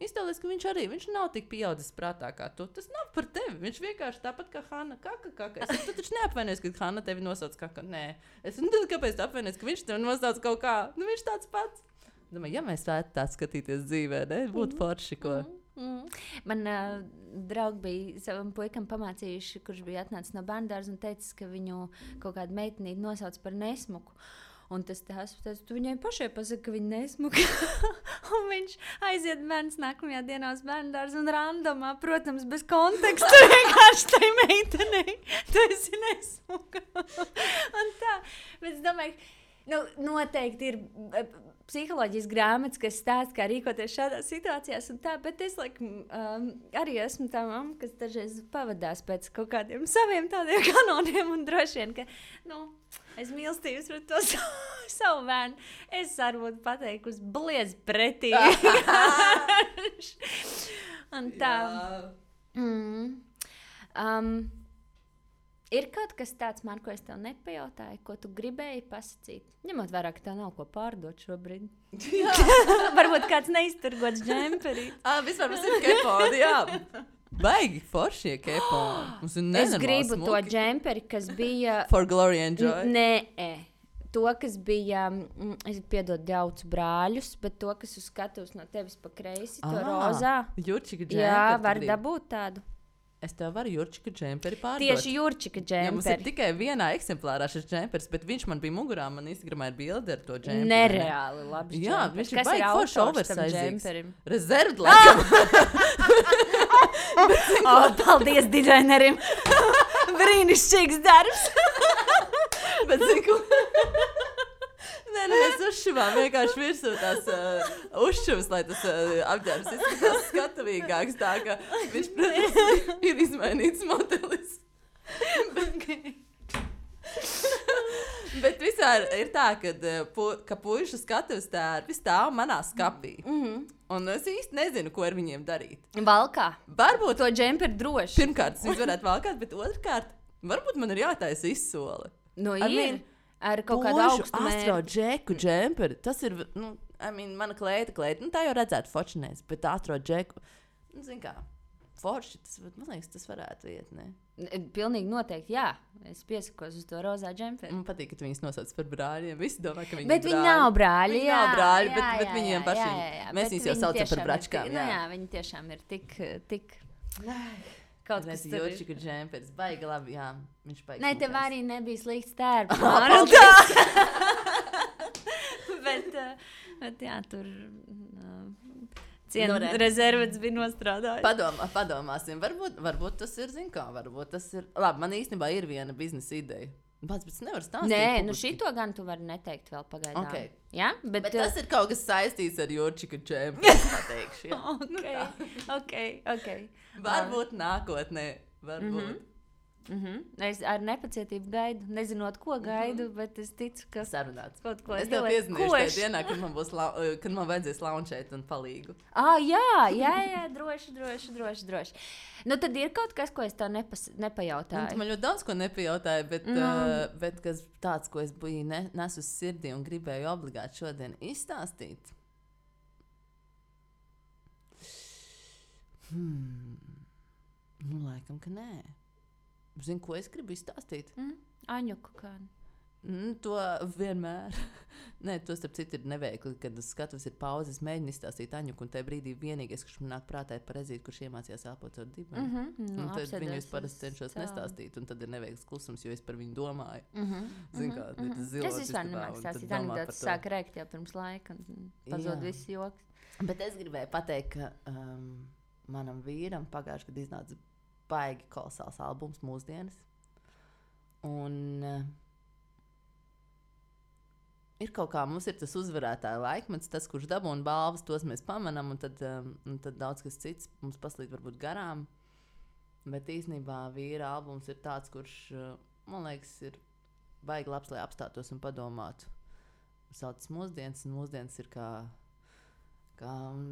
iztēlies, ka viņš nav tik pieaudzis prātā kā tu. Tas nav par tevi. Viņš vienkārši tāpat kā Hanna kaka. Es saku, tu taču neapvainojies, ka Hanna tevi nosauc kaka. Nē. Es saku, kāpēc tu apvainojies, ka viņš tevi nosauc kaut kā? Viņš tāds pats. Domāju, ja mēs varētu tā skatīties dzīvē, ne? Būtu forši, ko. Man draugi bija savam puikam pamācījuši, kurš bija atnācis no bērndārza un teicis, ka viņu kaut kādu meitenīti nosauc par nesmuku. Un tas teica, tu viņai pašai pasaki, ka viņa nesmuka. Un viņš aiziet bērns nākamajā dienā uz bērndārzu un randomā, protams, bez konteksta vienkārši tai meitenei. Tu esi nesmuka. Un tā. Bet es domāju, noteikti ir psiholoģijas grāmatas, kas stāsta, kā rīkoties šādās situācijās un tā, bet es arī esmu tā mamma, kas dažreiz pavadās pēc kaut kādiem saviem tādiem kanoniem un droši vien, ka, es mīlestības pret to savu bērnu. Es arī būtu pateikusi bliez pretī. Un tā. Ir kaut kas tāds, man, ko es tev nepajautāju, ko tu gribēji pasakīt? Ņemot vērā, ka tev nav ko pārdot šobrīd. Varbūt kāds neizturgots džemperi. Vispār mums ir keponi, jā. Baigi foršie keponi. Es gribu smuki. To džemperi, kas bija... For glory and joy? Nē. To, kas bija, es piedodu daudz brāļus, bet to, kas uz skatuves no tevis pa kreisi, to rozā. Jurčika džemperi. Jā, var dabūt tādu. Es tev varu Jurčika džemperi pārdot. Tieši Jurčika džemperi. Jā, mums ir tikai vienā eksemplārā šis džemperis, bet viņš man bija mugurā, man Instagramā ir bilde ar to džemperi. Nereāli labs jā, džemperis. Viņš ir baigi forši oversizings. Rezervd, paldies dizainerim. Brīnišķīgs darbs. Bet zinu, Nē, mēs uzšuvām vienkārši virsū tās uzšuvas, lai tas apģērbs izskatās skatavīgāks, tā ka viņš, protams, ir izmainīts modelis. Bet visār ir tā, ka puišu skatuves tērpi stāv manā skapī. Un es īsti nezinu, ko ar viņiem darīt. Valkā. Varbūt to džemperi droši. Pirmkārt, es varētu valkāt, bet otrkārt, varbūt man ir jātaisa izsole. Ir. Ar kaut kādu augstu mērķi. Astro džeku džemperi. Tas ir, mana kleita. Tā jau redzētu fočinēs, bet astro džeku, zin kā, forši, man liekas, tas varētu iet, ne? Pilnīgi noteikti, jā. Es piesakos uz to rozā džemperi. Man patīk, ka tu viņus nosauc par brāļiem. Visi domā, ka viņi bet ir brāļi. Bet viņi nav brāļi, jā. Viņi nav brāļi, bet viņiem pašiem. Mēs viņus jau saucam par bračkām, jā. Jā, viņi tiešām ir tik... Kaut kas tur ir. Jurčika džemperis, baigi labi, jā. Viņš baigi. Nē, tev arī nebija slikts tērps. Bet jā, tur rezervets bija nostrādājis. Padomāsim. Varbūt tas ir, zin kā, varbūt tas ir. Labi, man īstenībā ir viena biznesa ideja. Bet nevar stāstīt. Nē, šito gan tu vari neteikt vēl pagaidām. Okay. Ja? Bet tas ir kaut kas saistīts ar Jurčika džemperis, pateikšu. Ok. Varbūt nākotnē. Varbūt. Es ar nepacietību gaidu, nezinot, ko gaidu, bet es ticu, ka sarunāts. Kaut ko es tev piezinīšu tajā dienā, kad man vajadzēs launčēt un palīgu. Jā, droši. Tad ir kaut kas, ko es tev nepajautāju. Man ļoti daudz ko nepajautāju, bet kas tāds, ko es biju nesu uz sirdī un gribēju obligāti šodien izstāstīt. Laikam, ka nē. Zini, ko es gribu izstāstīt? Aņuku kādu. To vienmēr. Nē, to starp citu ir neveikli, kad uz skatuves ir pauze. Es mēģinu izstāstīt Aņuku, un tajā brīdī vienīgais, kurš man nāk prātā, ir Parezīte, kurš iemācījās elpot ar dibeni. Tad viņus parasti cenšos nestāstīt, un tad ir neveikls klusums, jo es par viņu domāju. Zini, kā tas zilos. Es vispār nemāku stāstīt anekdotas, sāk rēkt jau pirms laika, un pazod viss joks. Bet es gribēju pateikt, ka manam vīram pagājuši, kad iznāca baigi kolosāls albums mūsdienas. Un ir kaut kā, mums ir tas uzvarētāja laikmets, tas, kurš dabūna balvas, tos mēs pamanām, un tad daudz kas cits mums paslīd varbūt garām. Bet īstenībā vīra albums ir tāds, kurš, man liekas, ir baigi labs, lai apstātos un padomātu. Sauc mūsdienas, un mūsdienas ir kā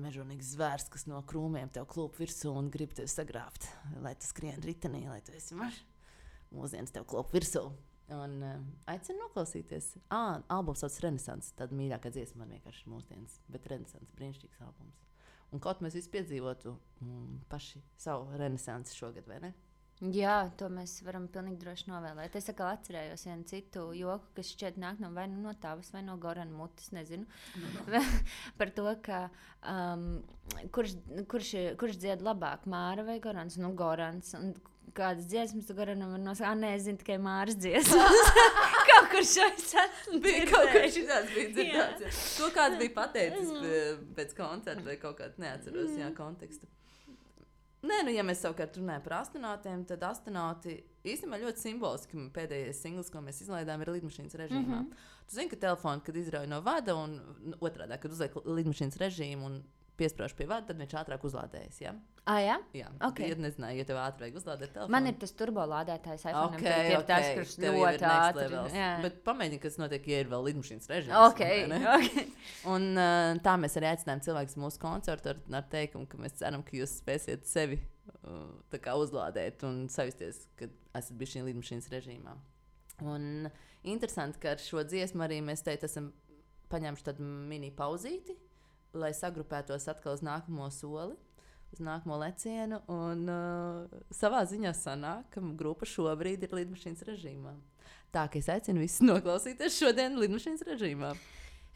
mežonīgs zvērs, kas no krūmiem tev klūp virsū un grib tevi sagrābt, lai tu skrien ritenī, lai tu esi mažs. Mūsdienas tev klūp virsū. Un aicinu noklausīties. Albums sauc Renesans, tad mīļākā dziesma man vienkārši ir mūsdienas, bet Renesans, brīnišķīgs albums. Un kaut mēs visi piedzīvotu paši savu Renesansi šogad, vai ne? Jā, to mēs varam pilnīgi droši novēlēt. Es atkal atcerējos vienu citu joku, kas šķiet nāk vai no tavas, vai no Gorana mutes, nezinu. Par to, ka kurš dzied labāk, Māra vai Gorans? Nu, Gorans. Un kādas dziesmas tu Goranam var nosaukt? Nē, es zinu tikai Māras dziesmas. Kaut kur šais esmu dzirdējis. Kaut kur šitās bija dzirdēts. To kāds bija pateicis pēc koncerta vai kaut kāds neatceros, kontekstu. Nē, ja mēs savukārt runājam par astronautiem, tad astronauti īstenībā ļoti simboliski pēdējais singls, ko mēs izlaidām, ir lidmašīnas režīmā. Tu zini, ka telefonu, kad izrauj no vada un otrādā, kad uzliek lidmašīnas režīmu un piesprāž pie vada, tad viņš ātrāk uzlādējas, ja? Jā? Jā. Okay. Ja nezināju, ja tev ātri vajag uzlādēt telefonu. Man ir tas turbolādētājs iPhone, tas, kurš ļoti ātri. Bet pamēģini, kas notiek, ja ir vēl lidmašīnas režīms. Okay. Un tā mēs arī aicinājām cilvēkus mūsu koncertu ar teikumu, ka mēs ceram, ka jūs spēsiet sevi tā kā uzlādēt un sajusties, kad esat bijuši šī lidmašīnas režīmā. Un interesanti, ka ar šo dziesmu arī mēs teikt esam paņēmuši tādu mini pauzīti, lai sagrupētos atkal uz nākamo soli, uz nākamo lecienu, un savā ziņā sanāk, ka grupa šobrīd ir lidmašīnas režīmā. Tā, ka es aicinu visus noklausīties šodien lidmašīnas režīmā.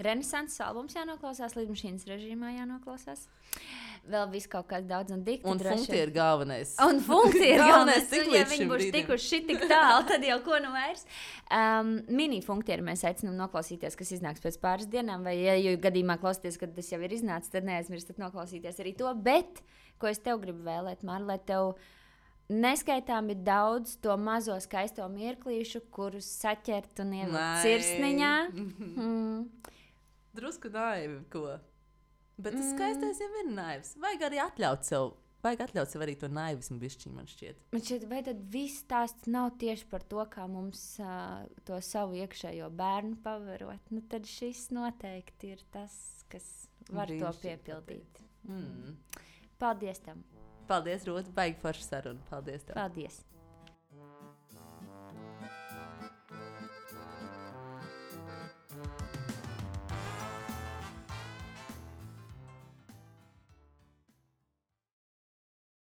Renesanses albums jānoklausās, lidmašīnas režīmā jānoklausās. Vēl viss kaut kāds daudz un dikti. Un funkti ir galvenais. Un funkti ir galvenais. Ja viņi būs tikuši šitik tālu, tad jau ko nu vairs. Mini funktieri mēs aicinām noklausīties, kas iznāks pēc pāris dienām, vai ja gadījumā klausīties, kad tas jau ir iznācis, tad neaizmirstat noklausīties arī to. Bet, ko es tev gribu vēlēt, Māra, lai tev neskaitāmi daudz to mazo skaisto mirklīšu, kurus saķert un ielikt sirsniņā. Drusku naivi, ko? Bet tas skaistais jau ir naivs. Vajag arī atļaut sev arī to naivismu bišķiņu, man šķiet. Man šķiet, vai tad viss stāsts nav tieši par to, kā mums to savu iekšējo bērnu pavarot? Nu, tad šis noteikti ir tas, kas var to piepildīt. Paldies tam. Paldies, Rūta. Baigi forša saruna. Paldies tev. Paldies.